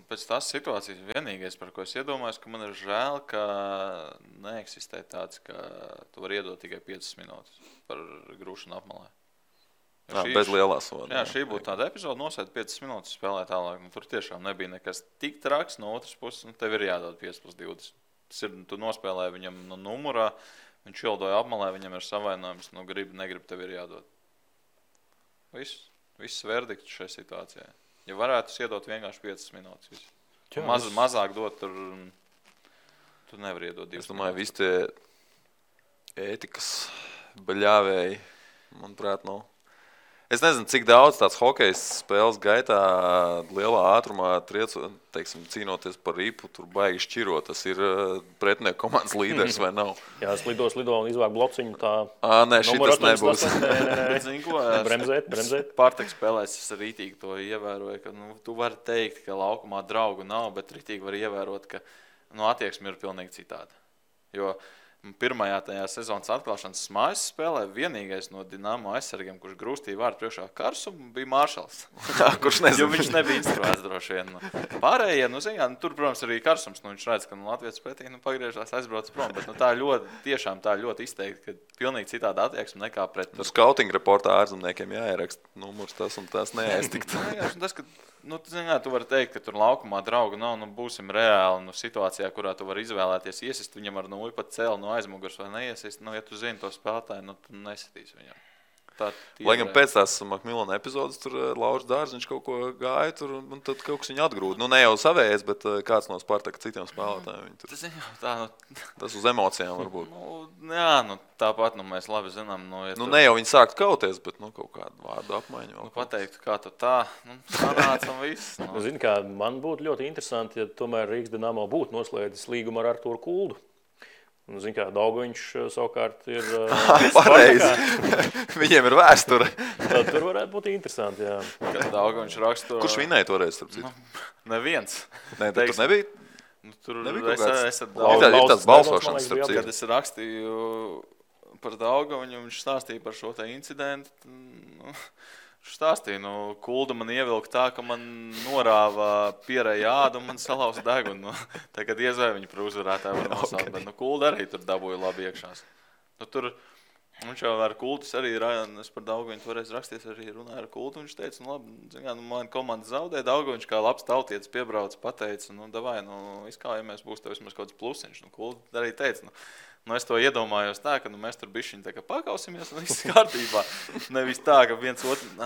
Pēc tās situācijas vienīgais, par ko es iedomājos, ka man ir žēl, ka neeksistē tāds, ka tu vari iedot tikai 5 minūtes par grūšanu apmalē. Bez lielā soda. Jā, šī būtu tāda epizode, nosēd 5 minūtes, spēlē tālāk. Tur tiešām nebija nekas tik traks no otras puses, tev ir jādod 5+20. Tas ir, tu nospēlēji viņam no numurā, viņš ieldoja apmalē, viņam ir savainojums, negrib, tev ir jādod. Viss verdikts šajā situācijā. Ja varētu iedot vienkārši 5 minūtes. Mazāk dot, tur nevar iedot 2 minūtes. Es domāju, visi tie ētikas baļāvēji, manuprāt, nav. Es nezinu, cik daudz tāds hokejs spēles gaitā lielā ātrumā cīnoties par ripu, tur baigi šķiro. Tas ir pretinieku komandas līderis vai nav? Jā, slido un izvāk blociņu tā. Nē, šitas nebūs. Bremzēt. Pārtek spēlēs, es rītīgi to ievēroju, ka tu vari teikt, ka laukumā draugu nav, bet rītīgi var ievērot, ka attieksme ir pilnīgi citāda. Jo pirmajā tajā sezonas atklāšanas mājas spēlē vienīgais no Dinamo aizsargiem, kurš grūstīja vārdu priekšā Karsumu, bija Maršals. Kurš nezinu. Jo viņš nebija instruēts droši vien. Pārējie, tur, protams, arī Karsums, viņš redz, ka Latvijas pretī pagriežās, aizbrauc prom, bet tā ļoti izteikti, ka pilnīgi citāda attieksme nekā pret. Skautinga reportā ārzemniekiem jāieraksta numurs tas un tas neaiztikt. Tu vari teikt, ka tur laukumā draugu nav, būsim reāli situācijā, kurā tu vari izvēlēties iesist viņam ar nulli pat cēli no aizmugurs vai neiesist. Ja tu zini to spēlētāju, tu nesitīs viņam. Lai gan pēc tās Makmilona epizodes tur Lauris Dārziņš kaut ko gāja tur un tad kaut kas viņu atgrūda. Ne jau savējais, bet kāds no Spartaka citiem spēlētājiem. Tas uz emocijām varbūt. Tāpat mēs labi zinām. Ne jau viņi sāktu kauties, bet kaut kādu vārdu apmaiņu. Pateikt, kā tu tā, sanāca un viss. Zini kā, man būtu ļoti interesanti, ja tomēr Rīgas Dinamo būtu noslēdzis līgumu ar Arturu Kuldu. Zini kā, Daugaviņš savukārt ir pareizi. Viņiem ir vēsture. Tad tur varētu būt interesanti, jā. Kad Daugaviņš rakstu... Kurš vinēja toreiz, starp citu? Neviens. Tur nebija? Tur nebija kaut kāds... Ir tāds balsošanas, starp citu. Kad es rakstīju par Daugaviņu, viņš stāstīja par šo te incidentu. Viņš stāstīja, Kulda man ievilka tā, ka man norāva pierēja ādu un man salauza degunu. Tagad iezvēja viņu par uzvarētāju var nosaukt, bet Kulda arī tur dabūja labi iekšās. Tur viņš jau ar Kuldus arī, es par Daugaviņu toreiz raksties, arī runāju ar Kuldu, viņš teica, labi, man komanda zaudē, Daugaviņš kā labs tautietis piebrauc, pateica, davai, izkājamies, būs tev vismaz kaut kāds plusiņš. Kulda arī teica, es to iedomājos tā, ka mēs tur bišķiņ tā kā pakausimies un viss kārtībā. Nevis tā, ka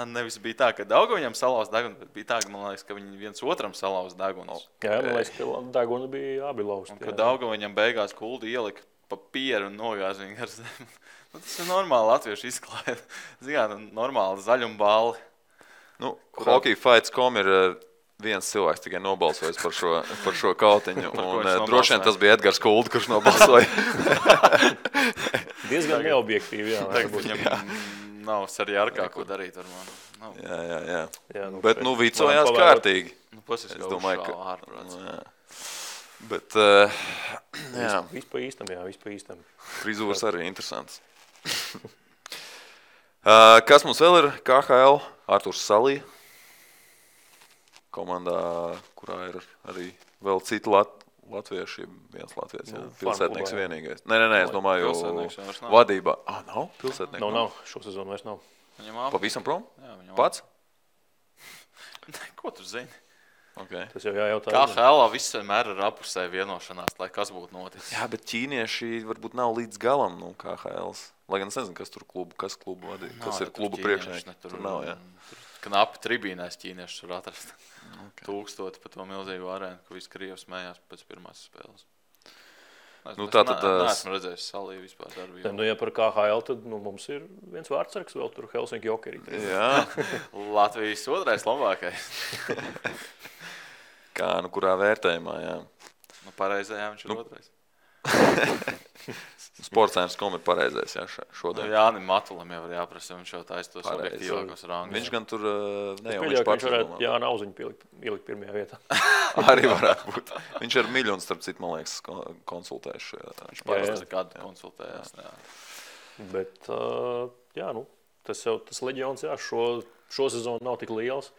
nevis bija tā, ka Daugaviņam salauz degunu, bet bija tā, ka man liekas, ka viņi viens otram salauz degunus. Jā, man liekas, ka deguni bija abi lausti. Un kad Daugaviņam beigās Kuldi ielika papieru un nogāz viņu ar zemi. Tas ir normāli latviešu izklaide. Normāli zaļumballi. Hockeyfights.com ir viens cilvēks tikai nobalsojis par šo kautiņu. Un droši vien tas bija Edgars Kulda, kurš nobalsoja. Diezgan neobjektīvi, jā. Viņam nav arī ar kā ko darīt ar mani. Jā. Bet vicojās kārtīgi. Es domāju, ka ārprāts. Bet, jā. Viss pa īstam. Frizūras arī interesants. Kas mums vēl ir? KHL, Arturs Salija. Komandā, kurā ir arī vēl citi latvieši, viens latviečs, pilsētnieks vienīgais. Nē, es domāju, vadībā. Nav pilsētnieks? Nav, šo sezonu vairs nav. Pavisam prom? Pats? Ko tu zini? Okay. Tas jau jājautā. KHL viss vienmēr ir apusē vienošanās, lai kas būtu noticis. Jā, bet ķīnieši varbūt nav līdz galam KHLs. Lai gan es nezinu, kas tur kas klubu vadīja, kas ir klubu priekšnieki. Tur nav, jā. Knapi tribīnēs ķīnieši tur atrast. 1000 pa to milzīgu arēnu, ka visi Krievi smējās pēc pirmās spēles. Neesmu redzējis Saliju vispār darbību. Ja par KHL, tad mums ir viens vārdsargs vēl tur Helsinki Jokerī. Jā. Latvijas otrais labākais. Kā, kurā vērtējumā, jā. Pareizajā viņš ir otrais. Sportscentrs.com ir pareizais, jā, šodien. Jānim Matulam jau var jāprasa, viņš jau taisa tos objektīvākos rangus. Viņš gan tur ne jau viņš pats varētu Jāna Auziņu ielikt pirmajā vietā. Arī varētu būt. Viņš ar miljonu starp citu, man liekas, konsultējuši. Viņš parasti kādu konsultējās. Jā. Bet, tas leģions, jā, šo sezonu nav tik liels.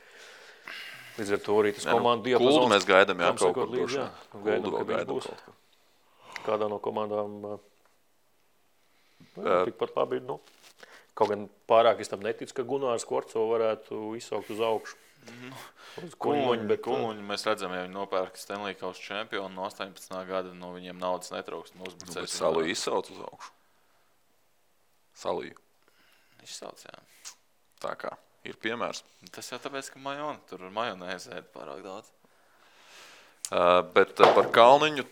Līdz ar to arī tas komandu diapazons. Kuldu mēs gaidām, jā, kaut kur līdz, jā. Gaidām, ka viņš būs kādā no komandām. Tikpat labi, kaut gan pārāk es tam neticu, ka Gunārs Korco varētu izsaukt uz augšu. Uz Kuņuņu mēs redzam, ja viņi nopērka Stanley Kausa čempionu no 18. gada, viņiem naudas netrūkst. Bet Saliju izsauc uz augšu. Saliju. Izsauc, jā. Tā kā ir piemērs. Tas jau tāpēc, ka tur majonēzi ēd pārāk daudz. Bet par Kalniņu,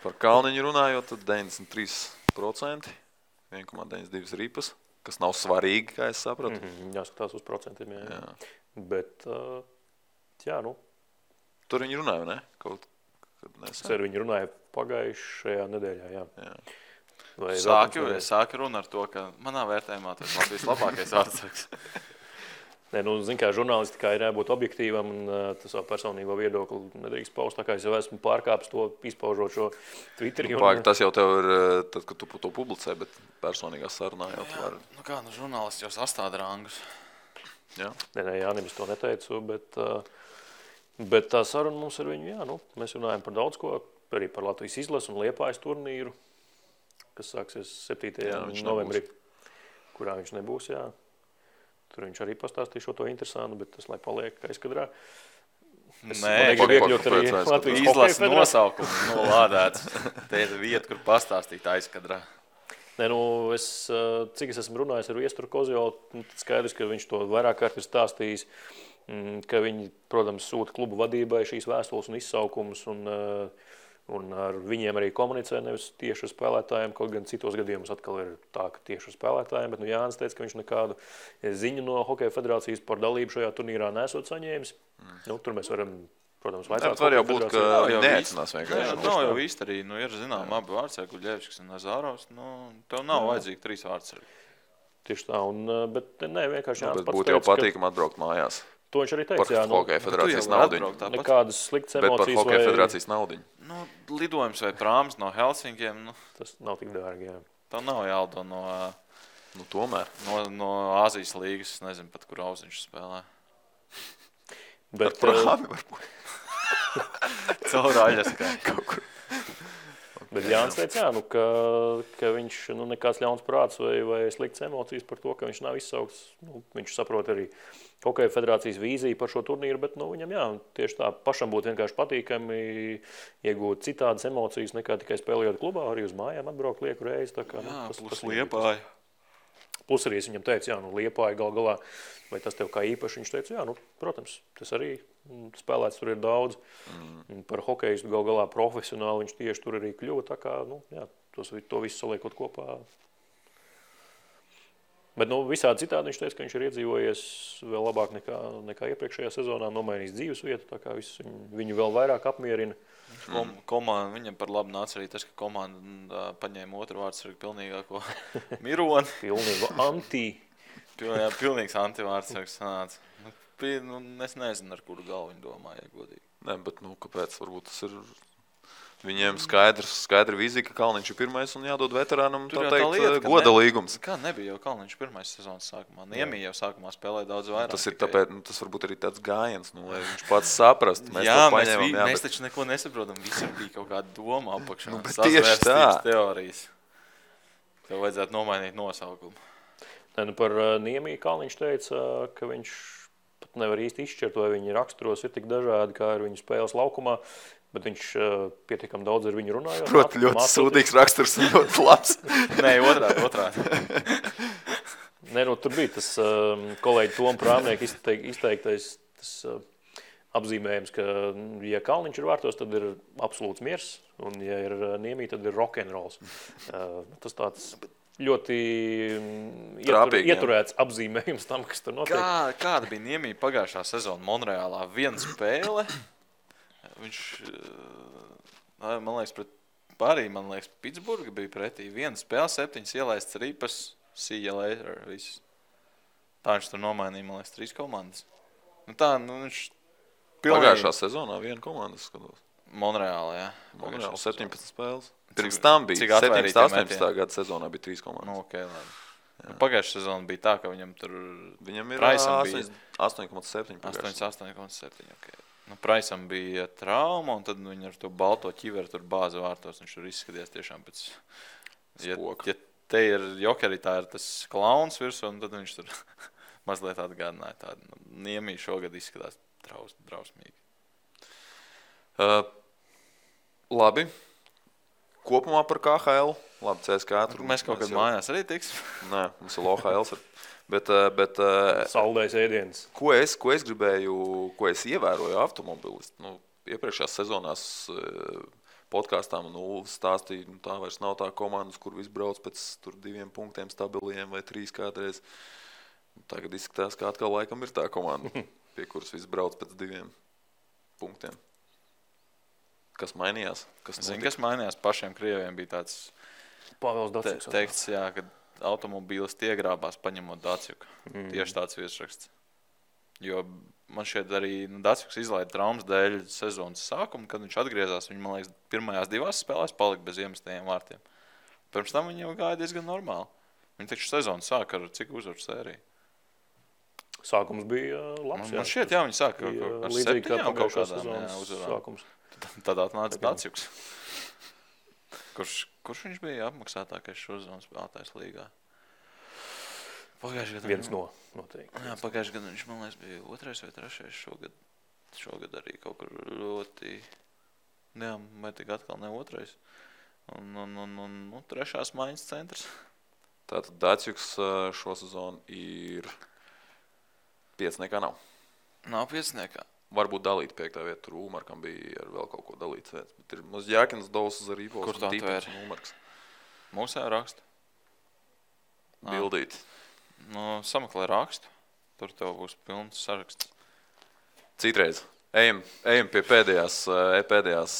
par Kalniņu runājot, tad 93%, 1,92 ripas, kas nav svarīgi, kā es sapratu. Jāskatās uz procentiem, jā. Bet, Tur viņi runāja, ne? Es ar viņu runāju pagājušajā nedēļā, jā. Sāka runa ar to, ka manā vērtējumā tas Latvijas labākais vārdsargs. Zin kā žurnālistikā ir jābūt objektīvam un tas savu personīgo viedokli nedrīkst paust, tā kā es jau esmu pārkāpis to, izpaužot šo Twitterī. Tas jau tev ir, tad, kad tu to publicē, bet personīgā sarunā jau tu vari. Žurnālists jau sastāda rangus. Jā. Nē, Jānim es to neteicu, bet tā saruna mums ar viņu, mēs runājam par daudz ko, arī par Latvijas izlasu un Liepājas turnīru, kas sāksies 7. novembrī, kurā viņš nebūs, jā. Tur viņš arī pastāstīja šo to interesantu, bet tas, lai paliek aizkadrā. Nē, izlases nosaukums nolādēts. Te ir vieta, kur pastāstīt aizkadrā. Nē, cik es esmu runājis ar Viesturu Kozjolu, skaidrs, ka viņš to vairāk kārt ir stāstījis, ka viņi, protams, sūta klubu vadībai šīs vēstules un izsaukumus un ar viņiem arī komunicē nevis tieši ar spēlētājiem, kaut gan citos gadījumos atkal ir tā, ka tieši ar spēlētājiem, bet Jānis teica, ka viņš nekādu ziņu no Hokeja federācijas par dalību šajā turnīrā nesot saņēmis. Tur mēs varam, protams, vaicāt. Var jau būt, ka viņi neaicinās vienkārši. Nav jau īsti arī, ir zinām abi vārdsargi, Guļevskis un Nazārovs, tev nav vajadzīgi 3 vārdsargi. Tieši tā, bet ne, vienkārši Jānis pats teica, būtu jau patīkam atbraukt mājās. To viņš arī teica, par Hokeja federācijas naudiņu. Nekādas sliktas emocijas. Bet par Hokeja federācijas naudiņu. Lidojums vai prāms no Helsinkiem. Tas nav tik dārgi, jā. Tā nav jālido no... tomēr. No Āzijas līgas, es nezinu pat, kur Auziņš spēlē. Bet prāmi varbūt. Caur Aļaskai. Kaut kur. Bet Jānis teica, ka viņš nekāds ļauns prāts vai sliktas emocijas par to, ka viņš nav izsaukts. Viņš saprot arī Hokeja federācijas vīziju par šo turnīru, bet viņam tieši tā pašam būtu vienkārši patīkami iegūt citādas emocijas nekā tikai spēlējot klubā, arī uz mājām atbraukt lieku reizi. Tā kā, plus Liepāja. Plus arī es viņam teicu, Liepāja gal galā, vai tas tev kā īpaši, viņš teica, protams, tas arī spēlēts tur ir daudz. Par hokejistu gal galā profesionāli viņš tieši tur arī kļuva, tā kā, to visu saliekot kopā. Bet visādi citādi viņš teica, ka viņš ir iedzīvojies vēl labāk nekā iepriekšējā sezonā, nomainījis dzīves vietu, tā kā viss viņu vēl vairāk apmierina. Viņam par labu nāca arī tas, ka komanda paņēma otru vārdsargu pilnīgāko Mironi. Pilnīgs antivārdsargs sanāca. Es nezinu, ar kuru galvu viņi domāja, godīgi. Nē, bet kāpēc? Varbūt tas ir viņiem skaidra vīzija, ka Kalniņš ir pirmais un jādod veterānam, tā teikt, goda līgums. Kā nebija jau Kalniņš pirmais sezonas sākumā? Niemī jau sākumā spēlēja daudz vairāk. Tas ir tāpēc, tas varbūt arī tāds gājiens, lai viņš pats saprast. Mēs taču neko nesaprotam, visur bija kaut kāda doma apakšā. Tieši tā. Teorijas. Tev vajadzētu nomainīt nosaukumu. Par Niemī Kalniņš teica, ka viņš pat nevar īsti izšķirt, vai viņa raksturos ir tik dažādi, kā ir viņa spēles laukumā. Bet viņš pietiekam daudz ar viņu runājot. Proti, ļoti sūdīgs raksturs un ļoti labs. Nē, otrādi. Nē, tur bija tas kolēģi Toma Prāmnieka izteiktais apzīmējums, ka, ja Kalniņš ir vārtos, tad ir absolūts miers, un ja ir Niemī, tad ir rock'n'rolls. Tas tāds ļoti ieturēts apzīmējums tam, kas tur notiek. Kāda bija Niemī pagājušā sezona Monreālā? Viena spēle. Viņš, man liekas, Pitsburga bija pretī. Viena spēle, 7 ielaists ripas, see you later, viss. Tā viņš tur nomainīja, man liekas, 3 komandas. Viņš Pagājušā sezonā viena komanda skatos. Monreālā, jā. Monreālā 17 spēles. Pirms tam bija 17, 18 gada sezonā bija 3 komandas. Okay, labi. Pagājušā sezona bija tā, ka viņam tur Viņam ir Praisam bija 8,7. 8,7. Okay. Nu, Praisam bija trauma, un tad viņi ar to balto ķiveru tur bāza vārtos. Viņš tur izskaties tiešām pēc... Ja te ir jokerī, tā ir tas klauns virsū, un tad viņš tur mazliet atgādināja tādu. Niemī šogad izskatās drausmīgi. Labi. Kopumā par KHL. Labi, CSK. Mēs kaut kad mājās arī tiksim. Nē, mums ir LOHL. Bet Saldais ēdiens. Ko es gribēju, ko es ievēroju automobilistu? Nu, iepriekšējās sezonās podkāstām stāstīja, tā vairs nav tā komandas, kur viss brauc pēc 2 punktiem stabiliem vai 3 kādreiz. Tagad izskatās, ka atkal laikam ir tā komanda, pie kuras viss brauc pēc 2 punktiem. Kas mainījās? Kas mainījās? Pašiem krieviem bija tāds Pāvils Daciuks. Teikts, jā, ka automobīlis iegrābās paņemot Daciuku. Tieši tāds virsraksts. Jo man šeit arī Daciuks izlaida traumas dēļ sezonas sākumu, kad viņš atgriezās. Viņš, man liekas, pirmajās 2 spēlēs palika bez iemestajiem vārtiem. Pirms tam viņi jau gāja diezgan normāli. Viņi taču sezonu sāka ar cik uzvaru sēriju? Sākums bija labs. Man šķiet, jā, viņi sāka ar 7 kaut kādām uzvarām. Tad atnāca Daciuks. Kurš viņš bija apmaksātākais šo sezonu spēlētājs līgā? Pagājušajā gadā viens no noteikti. Jā, pagājušajā gadā viņš, man liekas, bija 2. vai 3. Šogad arī kaut kur ļoti... Jā, vai tik atkal ne 2. Un 3. maiņas centrs. Tātad Daciuks šo sezonu ir 5. nav. Nav 5. Varbūt dalīt 5. vietu. Tur Ulmarkam bija ar vēl kaut ko dalīts vietas. Bet ir mums Jākins Dovs ar Rīpos. Kur tā tvēr? Mūsē rakstu. Bildīt. Nu, sameklē rakstu. Tur tev būs pilns saraksts. Citreiz. Ejam pie pēdējās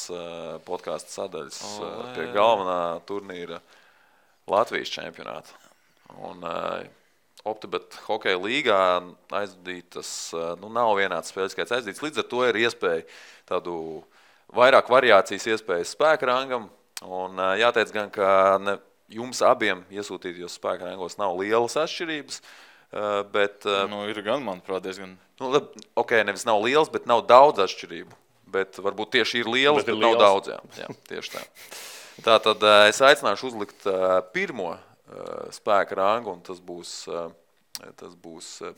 podkāstu sadaļas, pie galvenā turnīra Latvijas čempionāta. Un OptiBet hokeja līgā aizdītas, nav vienāds spēļu skaits aizdīts. Līdz ar to ir iespēja tādu vairāk variācijas iespējas spēka rangam. Un jāteic gan, ka jums abiem iesūtītajos spēka rangos nav lielas atšķirības. Bet, ir gan, manuprāt, diezgan. Nevis nav liels, bet nav daudz atšķirību. Bet varbūt tieši ir lielas, bet nav daudz. Jā, tieši tā. Tātad es aicināšu uzlikt pirmo spēka rangu, un tas būs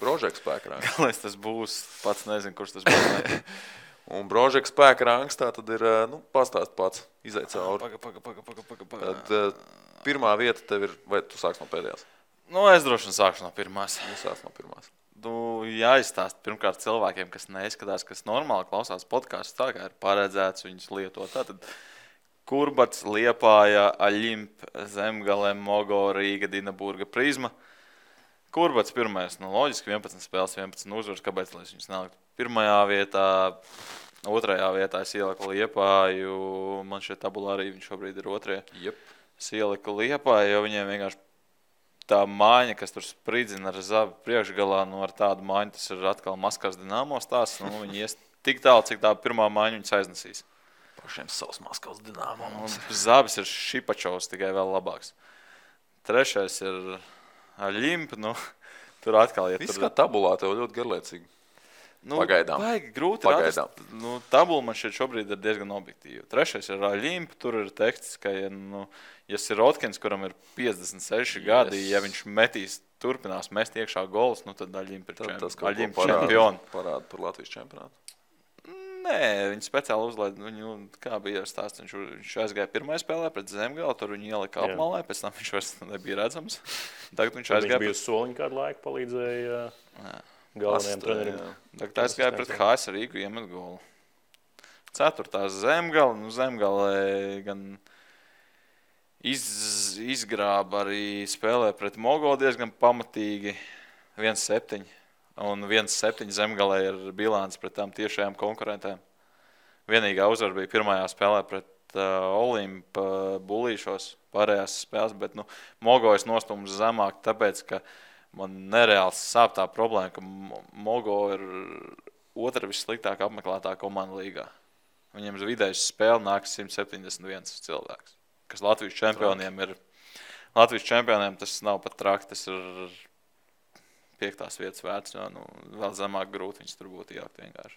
Brožeka spēka rangs. Galvenais tas būs, pats nezinu, kurš tas būs. Un Brožeka spēka rangs tā tad ir, pastāst pats, izaic cauri. Tad pirmā vieta tev ir, vai tu sāks no pēdējās? Es droši vien sākšu no pirmās. Jāizstāst pirmkārt cilvēkiem, kas neizskatās, kas normāli klausās podkāstus, tā kā ir paredzēts viņus lietot. Tātad Kurbats, Liepāja, Aļimp, Zemgale, Mogo, Rīga, Dinaburga, Prizma. Kurbats pirmais, loģiski 11 spēles, 11 uzvaras, kāpēc lai viņus neliktu pirmajā vietā, otrajā vietā es ieliku Liepāju, man šeit tabulā arī viņš šobrīd ir 2. Yep. Es ieliku Liepāju, jo viņiem vienkārši tā māņa, kas tur spridzina ar Zabi priekšgalā, ar tādu māņu, tas ir atkal Maskavas Dinamo stāsts. Viņi ies tik tālu, cik tā pirmā māņa viņus aiznesīs. Pašiem savs Maskavas Dinamo. Zabis ir Šipačovs, tikai vēl labāks. 3. ir Aļimp, tur atkal iet. Viss kā tabulā, tev ļoti garlaicīgi. Pagaidām. Vajag grūti atrast. Tabula man šeit šobrīd ir diezgan objektīva. 3. ir Aļimp, tur ir teksts, ka ja Sirotkins, kuram ir 56 gadi, ja viņš turpinās mest iekšā golus, tad Aļimp ir čempioni. Parāda par Latvijas čempionātu? Nē, viņi speciāli uzlaid, kā bija stāsts, viņš aizgāja pirmajā spēlē pret Zemgali, tur viņi ielika apmalē, pēc tam viņš vairs nebija redzams. Tagad viņš aizgāja. Viņš bija soliņu kādu laiku, palīdzēja galvenajiem treneriem. Tagad aizgāja pret HS Rīgu, iemet golu. 4. Zemgali, Zemgalē gan izgrāba arī spēlē pret Mogo diezgan pamatīgi 1-7. Un 1-7 Zemgalē ir bilants pret tām tiešajām konkurentēm. Vienīgā uzvara bija pirmajā spēlē pret Olimpa Bulīšos pārējās spēles, bet Mogo es nostūmu zemāk, tāpēc, ka man nereāls sāp tā problēma, ka Mogo ir 2. vissliktāk apmeklētā komanda līgā. Viņiem uz vidējas spēle nāk 171 cilvēks, kas Latvijas čempioniem ir Latvijas čempioniem tas nav pat traki, tas ir 5. vietas vērts, jo vēl zemāk grūti viņus tur būtu ielikt vienkārši.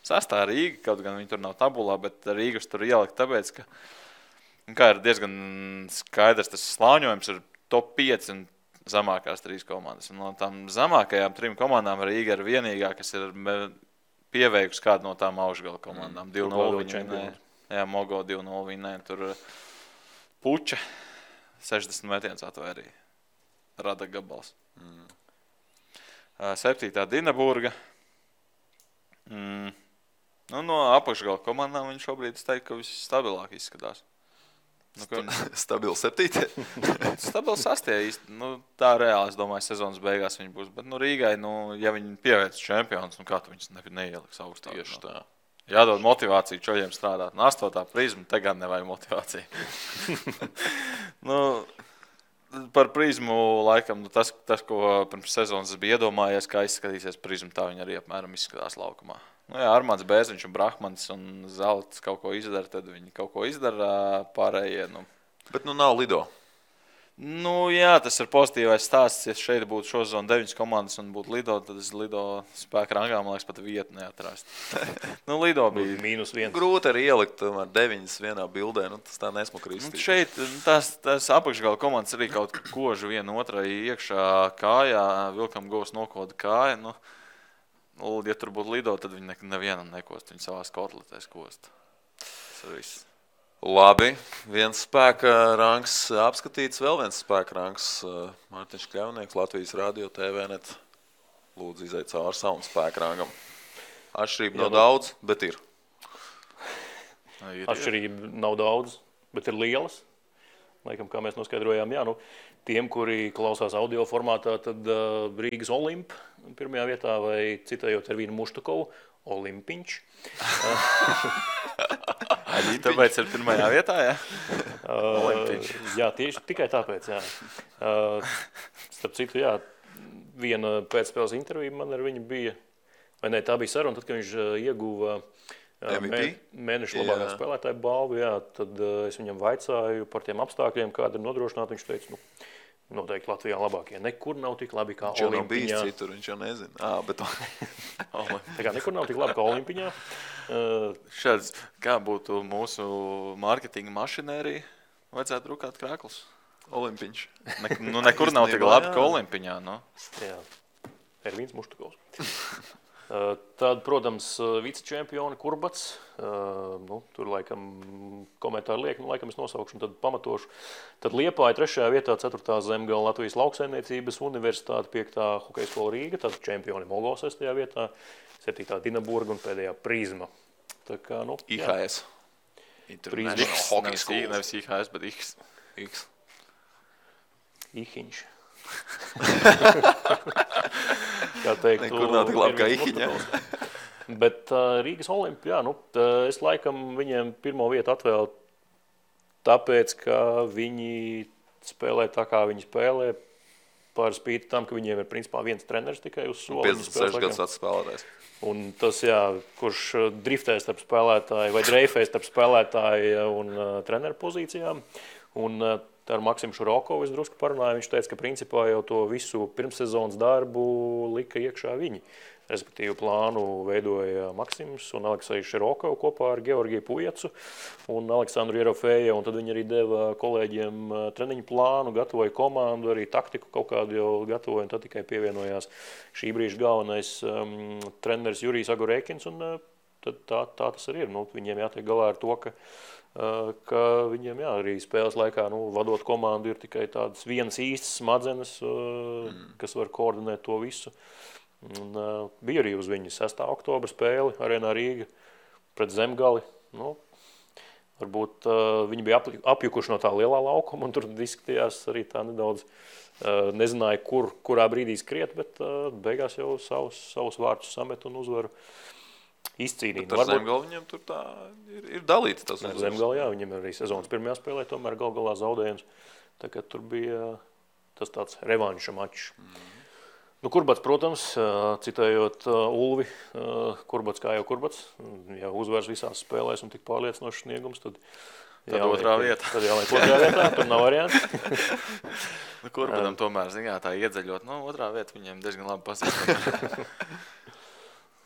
6. Rīga, kaut gan viņi tur nav tabulā, bet Rīgas tur ielikt tāpēc, ka kā ir diezgan skaidrs, tas slāņojums ir top 5 un zemākās 3 komandas. Un no tām zemākajām 3 komandām Rīga ir vienīgā, kas ir pieveikusi kādu no tām augšgala komandām. 2-0 viņi, jā, Mogo 2-0 viņi, tur Puča 60 metienus atvērīja. Rada gabals. 7. Dinaburga. No apakšgala komandām viņi šobrīd teiktu, ka viss stabilāk izskatās. Stabili 7. Stabili 6. īsti. Tā reāli, es domāju, sezonas beigās viņi būs. Bet Rīgai, ja viņi pievērts čempionus, kā tu viņus neieliks augstāk? Tieši tā. Jādod motivāciju čoļiem strādāt. 8. Prizmu tagad nevajag motivāciju. Par prizmu laikam, tas, ko pirms sezonas es biju iedomājies, kā izskatīsies prizmu, tā viņi arī apmēram izskatās laukumā. Jā, Armāns Bēziņš un Brahmans un Zelts kaut ko izdara, tad viņi kaut ko izdara pārējie. Bet nav Lido. Jā, tas ir pozitīvais stāsts. Ja šeit būtu šosezon 9 komandas un būtu Lido, tad es Lido spēka rangā, man liekas, pat vietu neatrast. Lido bija -1. Grūti arī ielikt 9 vienā bildē, tas tā nesmuka izstīst. Šeit tās apakšgala komandas arī kaut kožu viena otrai iekšā kājā, vilkam govs nokoda kāja. Ja tur būtu Lido, tad viņi nevienam nekost, viņi savās kotletēs kost. Tas ir viss. Labi, viens spēka rangs apskatīts, vēl viens spēka rangs. Mārtiņš Kļavnieks, Latvijas Radio TV.net. Lūdzu, iziet cauri savam spēka rangam. Atšķirība nav daudz, bet ir. Atšķirība nav daudz, bet ir lielas. Laikam, kā mēs noskaidrojām, tiem, kuri klausās audio formātā, tad Rīgas Olimp pirmajā vietā vai citējot ar Vīnu Muštukovu, Olimpiņš. Tāpēc ir pirmajā vietā, jā? Jā, tieši tikai tāpēc, jā. Starp citu, jā, viena pēcspēles intervija man ar viņu bija, vai ne, tā bija saruna, tad, kad viņš ieguva mēneša labākā spēlētāja balvu, jā, tad es viņam vaicāju par tiem apstākļiem, kāda ir nodrošināta. Viņš teica, noteikti Latvijā labākie. Nekur nav tik labi kā Olimpiņā. Viņš jau nav bijis citur, viņš jau nezina. Bet... Tā kā nekur nav tik labi kā Olimpiņā. Šāds, kā būtu mūsu mārketinga mašinērija, vajadzētu drukāt krāklus? Olimpiņš. Nekur nav tik labi kā Olimpiņā. Jā, Ervīns Muštukovs. Tad, protams, vicečempioni Kurbats. Tur laikam komentāri liek, laikam es nosaukšu un tad pamatošu. Tad Liepāja 3. vietā, 4. Zemgala Latvijas lauksaimniecības universitāte, 5. hokeja skola Rīga, tad čempioni Mogo 6. vietā, 7. Dinaburga un pēdējā Prizma. Tā kā, IHS. Nevis IHS, bet X. Ihiņš. Kā teikt, nekur nav tik labi kā Ihiņa. Bet Rīgas Olimpi, es laikam viņiem pirmo vietu atvēlu tāpēc, ka viņi spēlē tā, kā viņi spēlē, par spīti tam, ka viņiem ir principā viens treneris tikai uz soli. 56 gadus vecs spēlētājs. Un tas, kurš driftē starp spēlētāju vai dreifē starp spēlētāju un treneru pozīcijām. Un ar Maksimu Šurokovu es drusku parunāju. Viņš teica, ka principā jau to visu pirmssezonas darbu lika iekšā viņi. Respektīvi plānu veidoja Maksims un Aleksejs Širokovs kopā ar Georgiju Pujacu un Aleksandru Jerofēju. Un tad viņi arī deva kolēģiem treniņu plānu, gatavoja komandu, arī taktiku kaut kādu jau gatavoja. Un tad tikai pievienojās šī brīža galvenais treneris Jurijs Agurēkins. Un tad tā tas arī ir. Viņiem jātiek galā ar to, ka viņiem arī spēles laikā vadot komandu ir tikai tādas vienas īstas smadzenes, kas var koordinēt to visu. Un, bija arī uz viņu 6. oktobra spēli Arēnā Rīga pret Zemgali. Varbūt viņi bija apjukuši no tā lielā laukuma, un tur izskatījās arī tā nedaudz, nezināja, kurā brīdī skriet, bet beigās jau savus vārtus samet un uzvaru izcīnīt. Bet ar Zemgali viņam tur tā ir dalīts tas uzvaras. Zemgali, jā, viņam arī sezonas pirmajā spēlē tomēr galā zaudējums. Tā kā tur bija tas tāds revanša mačs. Kurbats, protams, citējot Ulvi, Kurbats kā jau Kurbats, ja uzvars visās spēlēs un tik pārliecinošs sniegums, tad Tad otrā vieta. Tad jāliek otrā vietā, tur nav variantu. Kurbanam tomēr, tā iedzeļot, otrā vieta viņiem diezgan labi pazīstam.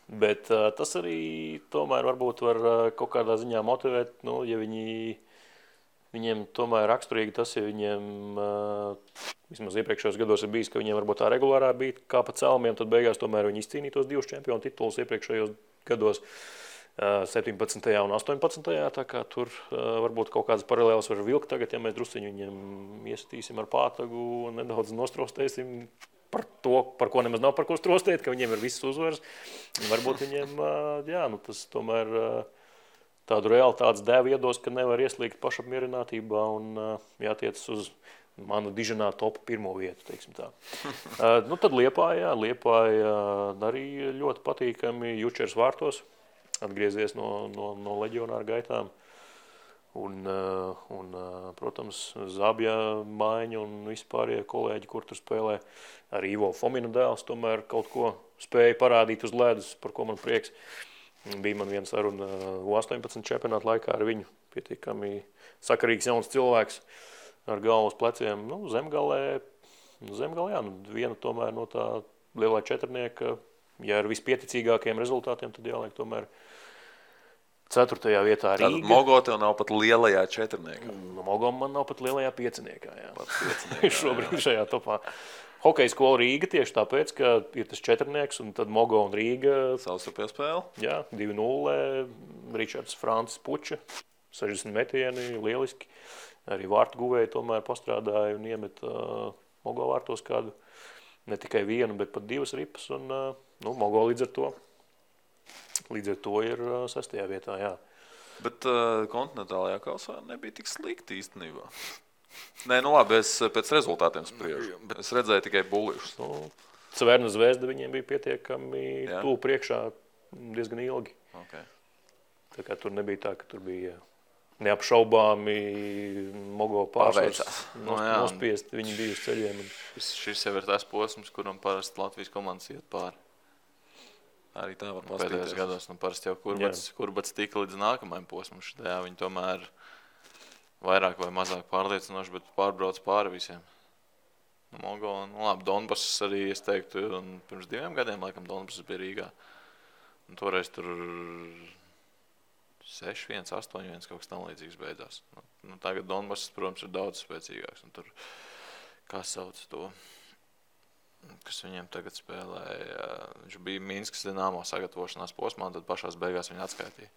Bet tas arī tomēr varbūt var kaut kādā ziņā motivēt, ja viņiem tomēr raksturīgi tas, ja viņiem vismaz iepriekšējos gados ir bijis, ka viņiem varbūt tā regulārā bija kā pa celmiem, tad beigās tomēr viņi izcīnītos 2 čempionu titulus iepriekšējos gados 17. un 18. Tā kā tur varbūt kaut kādas paralēlas var vilkt tagad, ja mēs drusciņu viņiem iesatīsim ar pātagu un nedaudz nostrostēsim par to, par ko nemaz nav par ko strostēt, ka viņiem ir visas uzvaras. Varbūt viņiem, tas tomēr tādu realitātes dēvu iedos, ka nevar ieslīgt pašapmierinātībā un jātiec uz manu diženā top 1. vietu, teiksim tā. Tad Liepāja arī ļoti patīkami Jučers vārtos, atgriezies no leģionāra gaitām. Un, protams, Zabja Maiņa un vispārējie kolēģi, kur tur spēlē. Arī Ivo Fomina dēls tomēr kaut ko spēja parādīt uz ledus, par ko man prieks. Bija man viena saruna U18 čempionāta laikā ar viņu. Pietiekami sakarīgs jauns cilvēks ar galvas pleciem. Zemgalē, viena tomēr no tā lielā četrnieka. Ja ar vispieticīgākiem rezultātiem, tad jāliek tomēr 4. vietā Rīga. Tātad Mogo tev nav pat lielajā četrniekā. Mogo man nav pat lielajā pieciniekā, jā. Šobrīd šajā topā. Hokeja skola Rīga tieši tāpēc, ka ir tas četrnieks un tad Mogo un Rīga. Savstarpējā spēle. Jā, 2-0, Ričards Francis Puča, 60 metieni, lieliski. Arī vārtu guvēji tomēr pastrādāja un iemet Mogo vārtos kādu, ne tikai vienu, bet pat 2 ripas un Mogo līdz ar to ir 6. vietā, jā. Bet kontinentālajā kausā nebija tik slikti īstenībā. Nē, labi, es pēc rezultātiem spriežu. Es redzēju tikai bulišus. Cverna Zvezda viņiem bija pietiekami tuvu priekšā diezgan ilgi. Okay. Tā kā tur nebija tā, ka tur bija neapšaubāmi Mogo pārsvars nospiest. Viņi bija uz ceļiem. Šis jau ir tās posms, kuram parasti Latvijas komandas iet pāri. Arī tā var pastīties. Pēdējos gados, parasti jau kurbats tika līdz nākamajam posmam. Viņi tomēr vairāk vai mazāk pārliecinoši, bet pārbrauc pāri visiem. Mogo, labi, Donbass arī, es teiktu, un pirms 2 gadiem, laikam, Donbass bija Rīgā. Un toreiz tur 6-1, 8-1, kaut kas tam līdzīgs beidzās. Tagad Donbass, protams, ir daudz spēcīgāks. Un tur, kā sauc to, kas viņiem tagad spēlēja, viņš bija Minskas Dinamo sagatavošanās posmā, un tad pašās beigās viņu atskaitīja.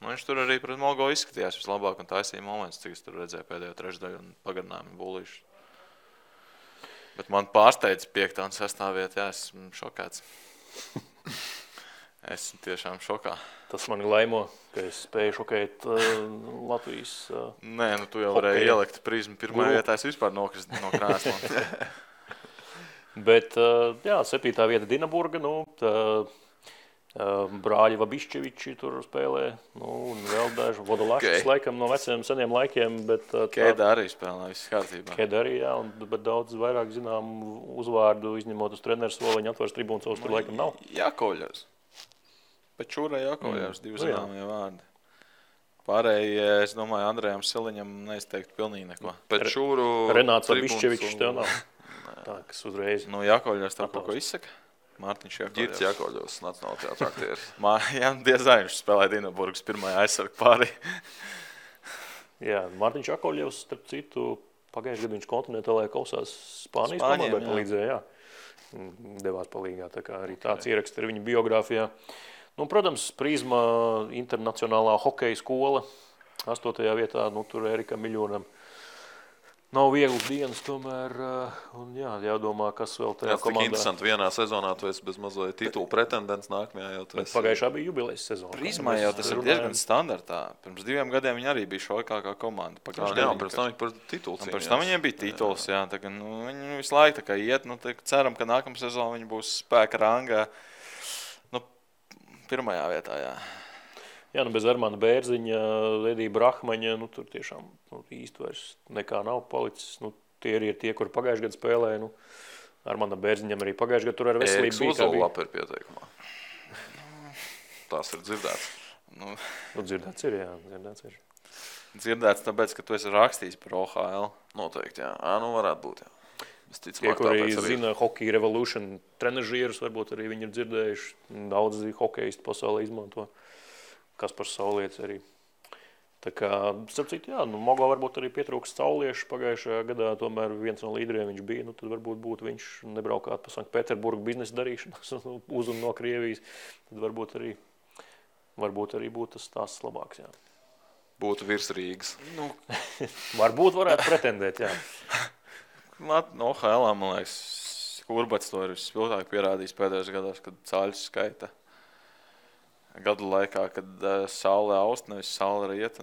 Viņš tur arī pret Mogo izskatījās vislabāk un taisīja moments, cik es tur redzēju pēdējo trešdaļu un pagarinājumu bulīšu. Bet man pārsteidz 5. un 6. vieta, esmu šokēts. Esmu tiešām šokā. Tas mani laimo, ka es spēju šokēt Latvijas Nē, tu jau varēji ielikt prizmu. Pirmajā vietā es vispār nokrist no krēsla. Bet, 7. vieta Dinaburga, brāļi Vabišķeviči tur spēlē, un vēl daži Vodolašs, laikam no veciem seniem laikiem, bet Kēda arī spēlē, viss kārtībā. Kēda arī, jā, bet daudz vairāk zinām uzvārdu, izņemot uz treneru soliņu, atvars tribūnas savus tur laikam nav. Jākoļos. Bet Čūrai Jākoļos 2 zināmie vārdi. Pārējie, es domāju, Andrejam Siliņam neizteiktu pilnīgi neko. Pēc Čūru Renāts Vabišķevičs tev nav. Tā, kas uzreiz. Jākoļos tev kaut ko izsaka? Mārtiņš Jākoļos. Girts Jākoļos, Nacionāla teātra aktieris. Jā, diezgan viņš spēlēja Dinaburgas pirmajā aizsargu pārī. Jā, Mārtiņš Jākoļos, starp citu, pagājušajā gadā viņš kontinentālajā kausās Spānijas komandai palīdzēja, devās palīgā, tā kā arī tāds ieraksts ir viņa biogrāfijā. Protams, Prizma internacionālā hokeja skola, 8. vietā, tur Erika Miļonam. Nav vieglas dienas tomēr, un jādomā, kas vēl tajā komandā. Tik interesanti, vienā sezonā tu esi bez mazliet titulu pretendents, nākamajā jau tu esi. Pagājušā bija jubilejas sezona. Prizmā jau tas ir diezgan standartā. Pirms 2 gadiem viņi arī bija šokākā komanda. Pirms tam viņi par titulu cīnījās. Pirms tam viņiem bija tituls, jā. Tagad, viņi visu laiku tā kā iet, ceram, ka nākamā sezona viņi būs spēka rangā. 1. vietā, jā. Jā, bez Armāna Bērziņa, Edija Brahmaņa, tur tiešām īsti vairs nekā nav palicis. Tie ir tie, kuri pagājušajā gadā spēlēja. Armāna Bērziņam arī pagājušajā gadā tur ar veselību bija. Ēriks Uzolapa ir pieteikumā. Tās ir dzirdēts. Dzirdēts ir, jā, dzirdēts ir. dzirdēts tāpēc, ka tu esi rakstījis par OHL. Noteikti, jā. Nu varētu būt, jā. Tie, kuri zina Hockey Revolution trenažierus, varbūt arī viņi ir dzirdējuši. Daudzi hokeisti pasaulē izmanto. Kaspars Saulietis arī. Tā kā, starp citu, jā, Mogo varbūt arī pietrūkst sauliešu pagājušajā gadā, tomēr viens no līderiem viņš bija, tad varbūt būtu viņš nebraukāt pa Sanktpēterburgu biznesa darīšanas uz un no Krievijas, tad varbūt arī būtu tas stāsts labāks, jā. Būtu virs Rīgas. Varbūt varētu pretendēt, jā. OHL, man liekas, Urbats to ir spilgtāk pierādījis pēdējos gados, kad cāļus skaita gadu laikā, kad saule aust, nevis saule riet.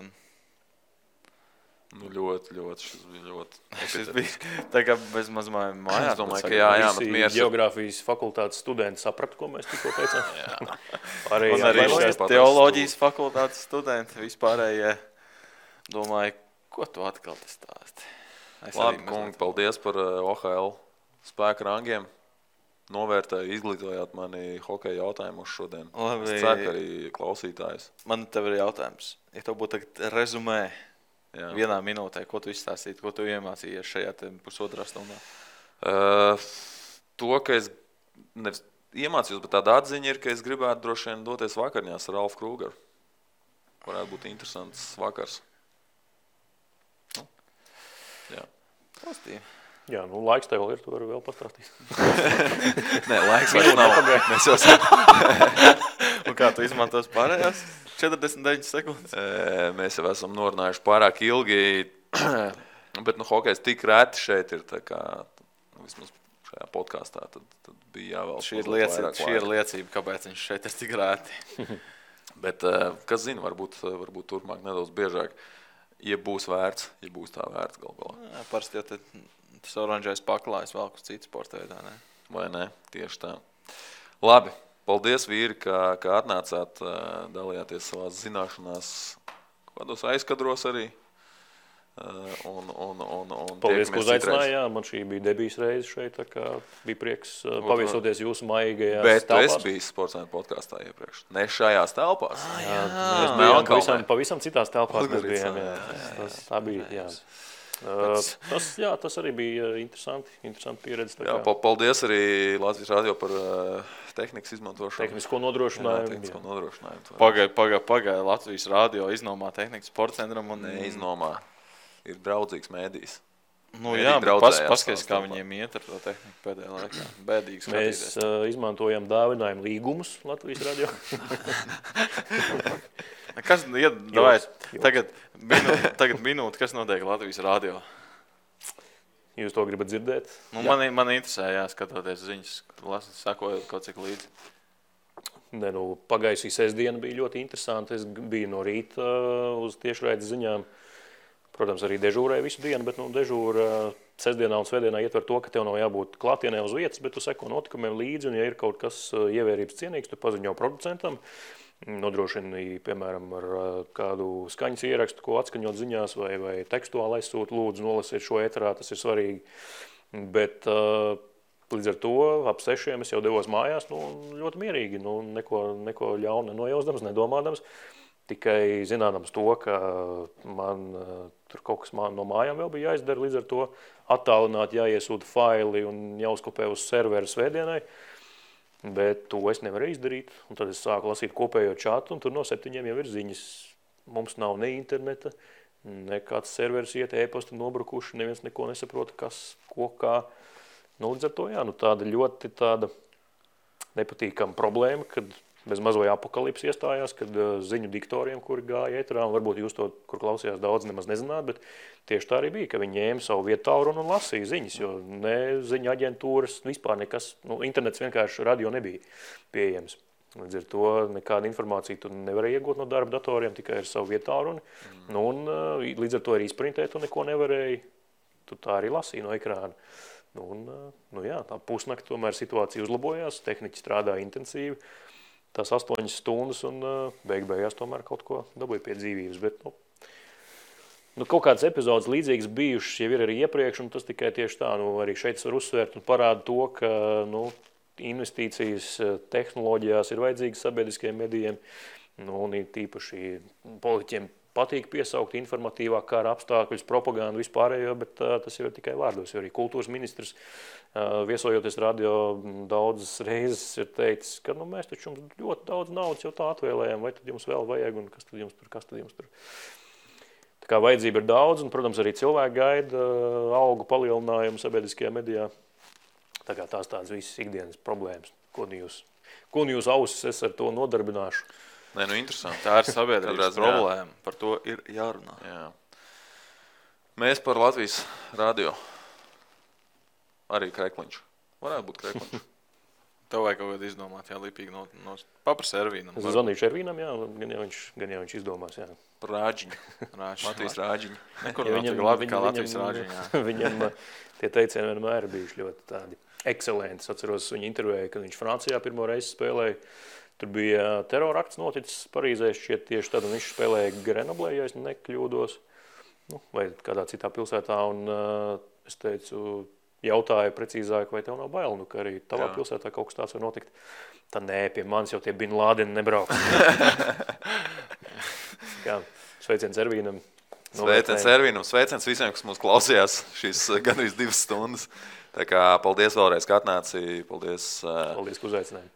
Ļoti, šis bija ļoti. Šis bija tā kā bez mazmājām mājās. Es domāju, ka jā, visi geogrāfijas fakultātes studenti sapratu, ko mēs tikko teicām. Jā. Man arī šīs teoloģijas fakultātes studenti vispārējie domāju, ko tu atkal te stāsti. Labi, kungi, paldies par OHL spēku rangiem. Novērtēju, izglītojāt mani hokeja jautājumus šodien. Labi. Es ceru, ka arī klausītājus. Man tev ir jautājums. Ja tev būtu tagad rezumē vienā minūtē, ko tu izstāstītu, ko tu iemācījies šajā pusotrā stundā? To, ka es nevis iemācījos, bet tāda atziņa ir, ka es gribētu droši vien doties vakarņās ar Ralfu Krūgeru. Varētu būt interesants vakars. Jā. Pozitīvi. Jā, laiks tev ir, tu vari vēl pastāstīt. Nē, laiks vairs nav. Mēs jau Un kā tu izmantos pārējās 49 sekundes? Mēs jau esam norunājuši pārāk ilgi, bet hokejs tik reti šeit ir, tā kā vismaz šajā podkastā, tad bija jāvēl. Šī ir liecība, kāpēc viņš šeit ir tik reti. Bet, kas zina, varbūt turpmāk nedaudz biežāk. Ja būs vērts, ja būs tā vērts galvā. Parasti jau tas oranžais paklājas vēl uz citu sporta veidā, ne? Vai ne? Tieši tā. Labi, paldies vīri, ka atnācāt, dalījāties savās zināšanās, kādos aizkadros arī. Paldies, ka uzaicinājāt. Man šī bija debijas reize šeit, tā kā bija prieks paviesoties jūsu maigajās telpās. Bet telpās. es biju Sportscenter podkastā iepriekš. Ne šajās telpās. Mēs bijām pavisam citās telpās. Mēs bijām, tā bija, jā. Tas arī bija interesanti pieredze. Jā, paldies arī Latvijas radio par tehnikas izmantošanu. Tehnisko nodrošinājumu. Tehnisko nodrošinājumu. Pagaid, Latvijas radio iznomā tehnikas sportcentram un neiznomā. Ir draudzīgs mēdījis. Jā, paskaties, kā viņiem iet ar to tehniku pēdējā laikā. Bēdīgi skatīties. Mēs izmantojam dāvinājumu līgumus Latvijas radio. Kas, tagad minūte, kas notiek Latvijas radio? Jūs to gribat dzirdēt? Man interesē, skatoties ziņas, sakojot kaut cik līdzi. Pagājušā sestdiena bija ļoti interesanti. Es biju no rīta uz tiešraides ziņām. Protams, arī dežūrēju visu dienu, bet dežūra sestdienā un svētdienā ietver to, ka tev nav jābūt klātienē uz vietas, bet tu seko notikumiem līdzi, un ja ir kaut kas ievērības cienīgs, tu paziņo producentam, nodrošini, piemēram, ar kādu skaņas ierakstu, ko atskaņot ziņās vai tekstuāli aizsūt, lūdzu nolasiet šo ēterā, tas ir svarīgi. Bet līdz ar to ap 6 es jau devos mājās, ļoti mierīgi, neko ļaunu nenojausdams, nedomādams. Tikai zinādams to, ka man tur kaut kas no mājām vēl bija jāizdara, līdz ar to attālināt, jāiesūta faili un jāuzkopē uz serveru svētdienai. Bet to es nevaru izdarīt. Un tad es sāku lasīt kopējo čatu, un tur no 7 jau ir ziņas. Mums nav ne interneta, nekāds serveris iet, e-pasti nobrukuši, neviens neko nesaprota, kas, ko, kā. Līdz ar to, tāda ļoti nepatīkama problēma, kad bez mazoja apokalipsi iestājās, kad ziņu diktoriem, kuri gāja ēterā, un varbūt jūs to, kur klausījās daudz, nemaz nezināt, bet tieši tā arī bija, ka viņi ņēma savu vietālruni un lasīja ziņas, jo ne ziņu aģentūras, vispār nekas, internets vienkārši radio nebija pieejams. Līdz ar to nekāda informācija tu nevarēja iegūt no darba datoriem, tikai ar savu vietālruni, un līdz ar to arī sprintēt tu neko nevarēja, tu tā arī lasīja no ekrāna. Tā pusnakti tomēr situācija uzlabojās, tehniķi strādāja intensīvi, tās 8 stundas un beigās tomēr kaut ko dabūja pie dzīvības. Bet, kaut kādas epizodes līdzīgas bijušas jau ir arī iepriekš, un tas tikai tieši tā, arī šeit var uzsvērt un parāda to, ka investīcijas tehnoloģijās ir vajadzīgas sabiedriskajiem medijiem, un tīpaši politiķiem patīk piesaukt informatīvāk kara apstākļus, propagandu vispārējo, bet tas jau ir tikai vārdos. Jo arī kultūras ministrs, viesojoties radio, daudzas reizes ir teicis, ka mēs taču jums ļoti daudz naudas jau tā atvēlējām, vai tad jums vēl vajag un kas tad jums tur. Tā kā vajadzība ir daudz, un, protams, arī cilvēki gaida algu palielinājumu sabiedriskajā medijā. Tā kā tās tādas visas ikdienas problēmas. Ko nu jūs ausis es ar to nodarbināšu? Nē, interesanti. Tā ir sabiedrības problēma. Par to ir jārunā. Jā. Mēs par Latvijas radio. Arī Krekliņš. Varētu būt Krekliņš. Tev vajag kaut kādu izdomāt, lipīgi no paprasa Ervīnam. Es zvanīšu Ervīnam, gan jau viņš izdomās, jā. Par Rāģiņu. Latvijas Rāģiņu. Nekur nav tik labi kā Latvijas Rāģiņā. Viņam tie teicieni vienmēr bijuši ļoti tādi ekscelenti. Es atceros viņu intervēju, kad viņš Francijā pirmo reizi spēlēja. Tur bija terorakts noticis Parīzē šķiet tieši tad, un viņš spēlēja Grenoblē, ja es nekļūdos, vai kādā citā pilsētā, un es teicu, jautāju precīzāk, vai tev nav bail, ka arī tavā pilsētā kaut kas tāds var notikt. Tā nē, pie manis jau tie Bin Lādeni nebrauks. Sveiciens Ervīnam. Sveiciens Ervīnam, sveiciens visiem, kas mūs klausījās šīs gandrīz 2 stundas. Tā kā paldies vēlreiz, ka atnāci. Paldies, ka uzaicināji.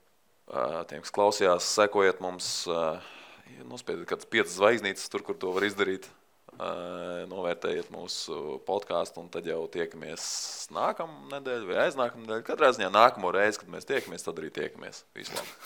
Tiem, kas klausījās, sekojiet mums, nospiediet kādas 5 zvaigznītes tur, kur to var izdarīt. Novērtējiet mūsu podcastu un tad jau tiekamies nākamā nedēļa vai aiznākamā nedēļa. Katrā ziņā nākamo reizi, kad mēs tiekamies, tad arī tiekamies. Visu labi!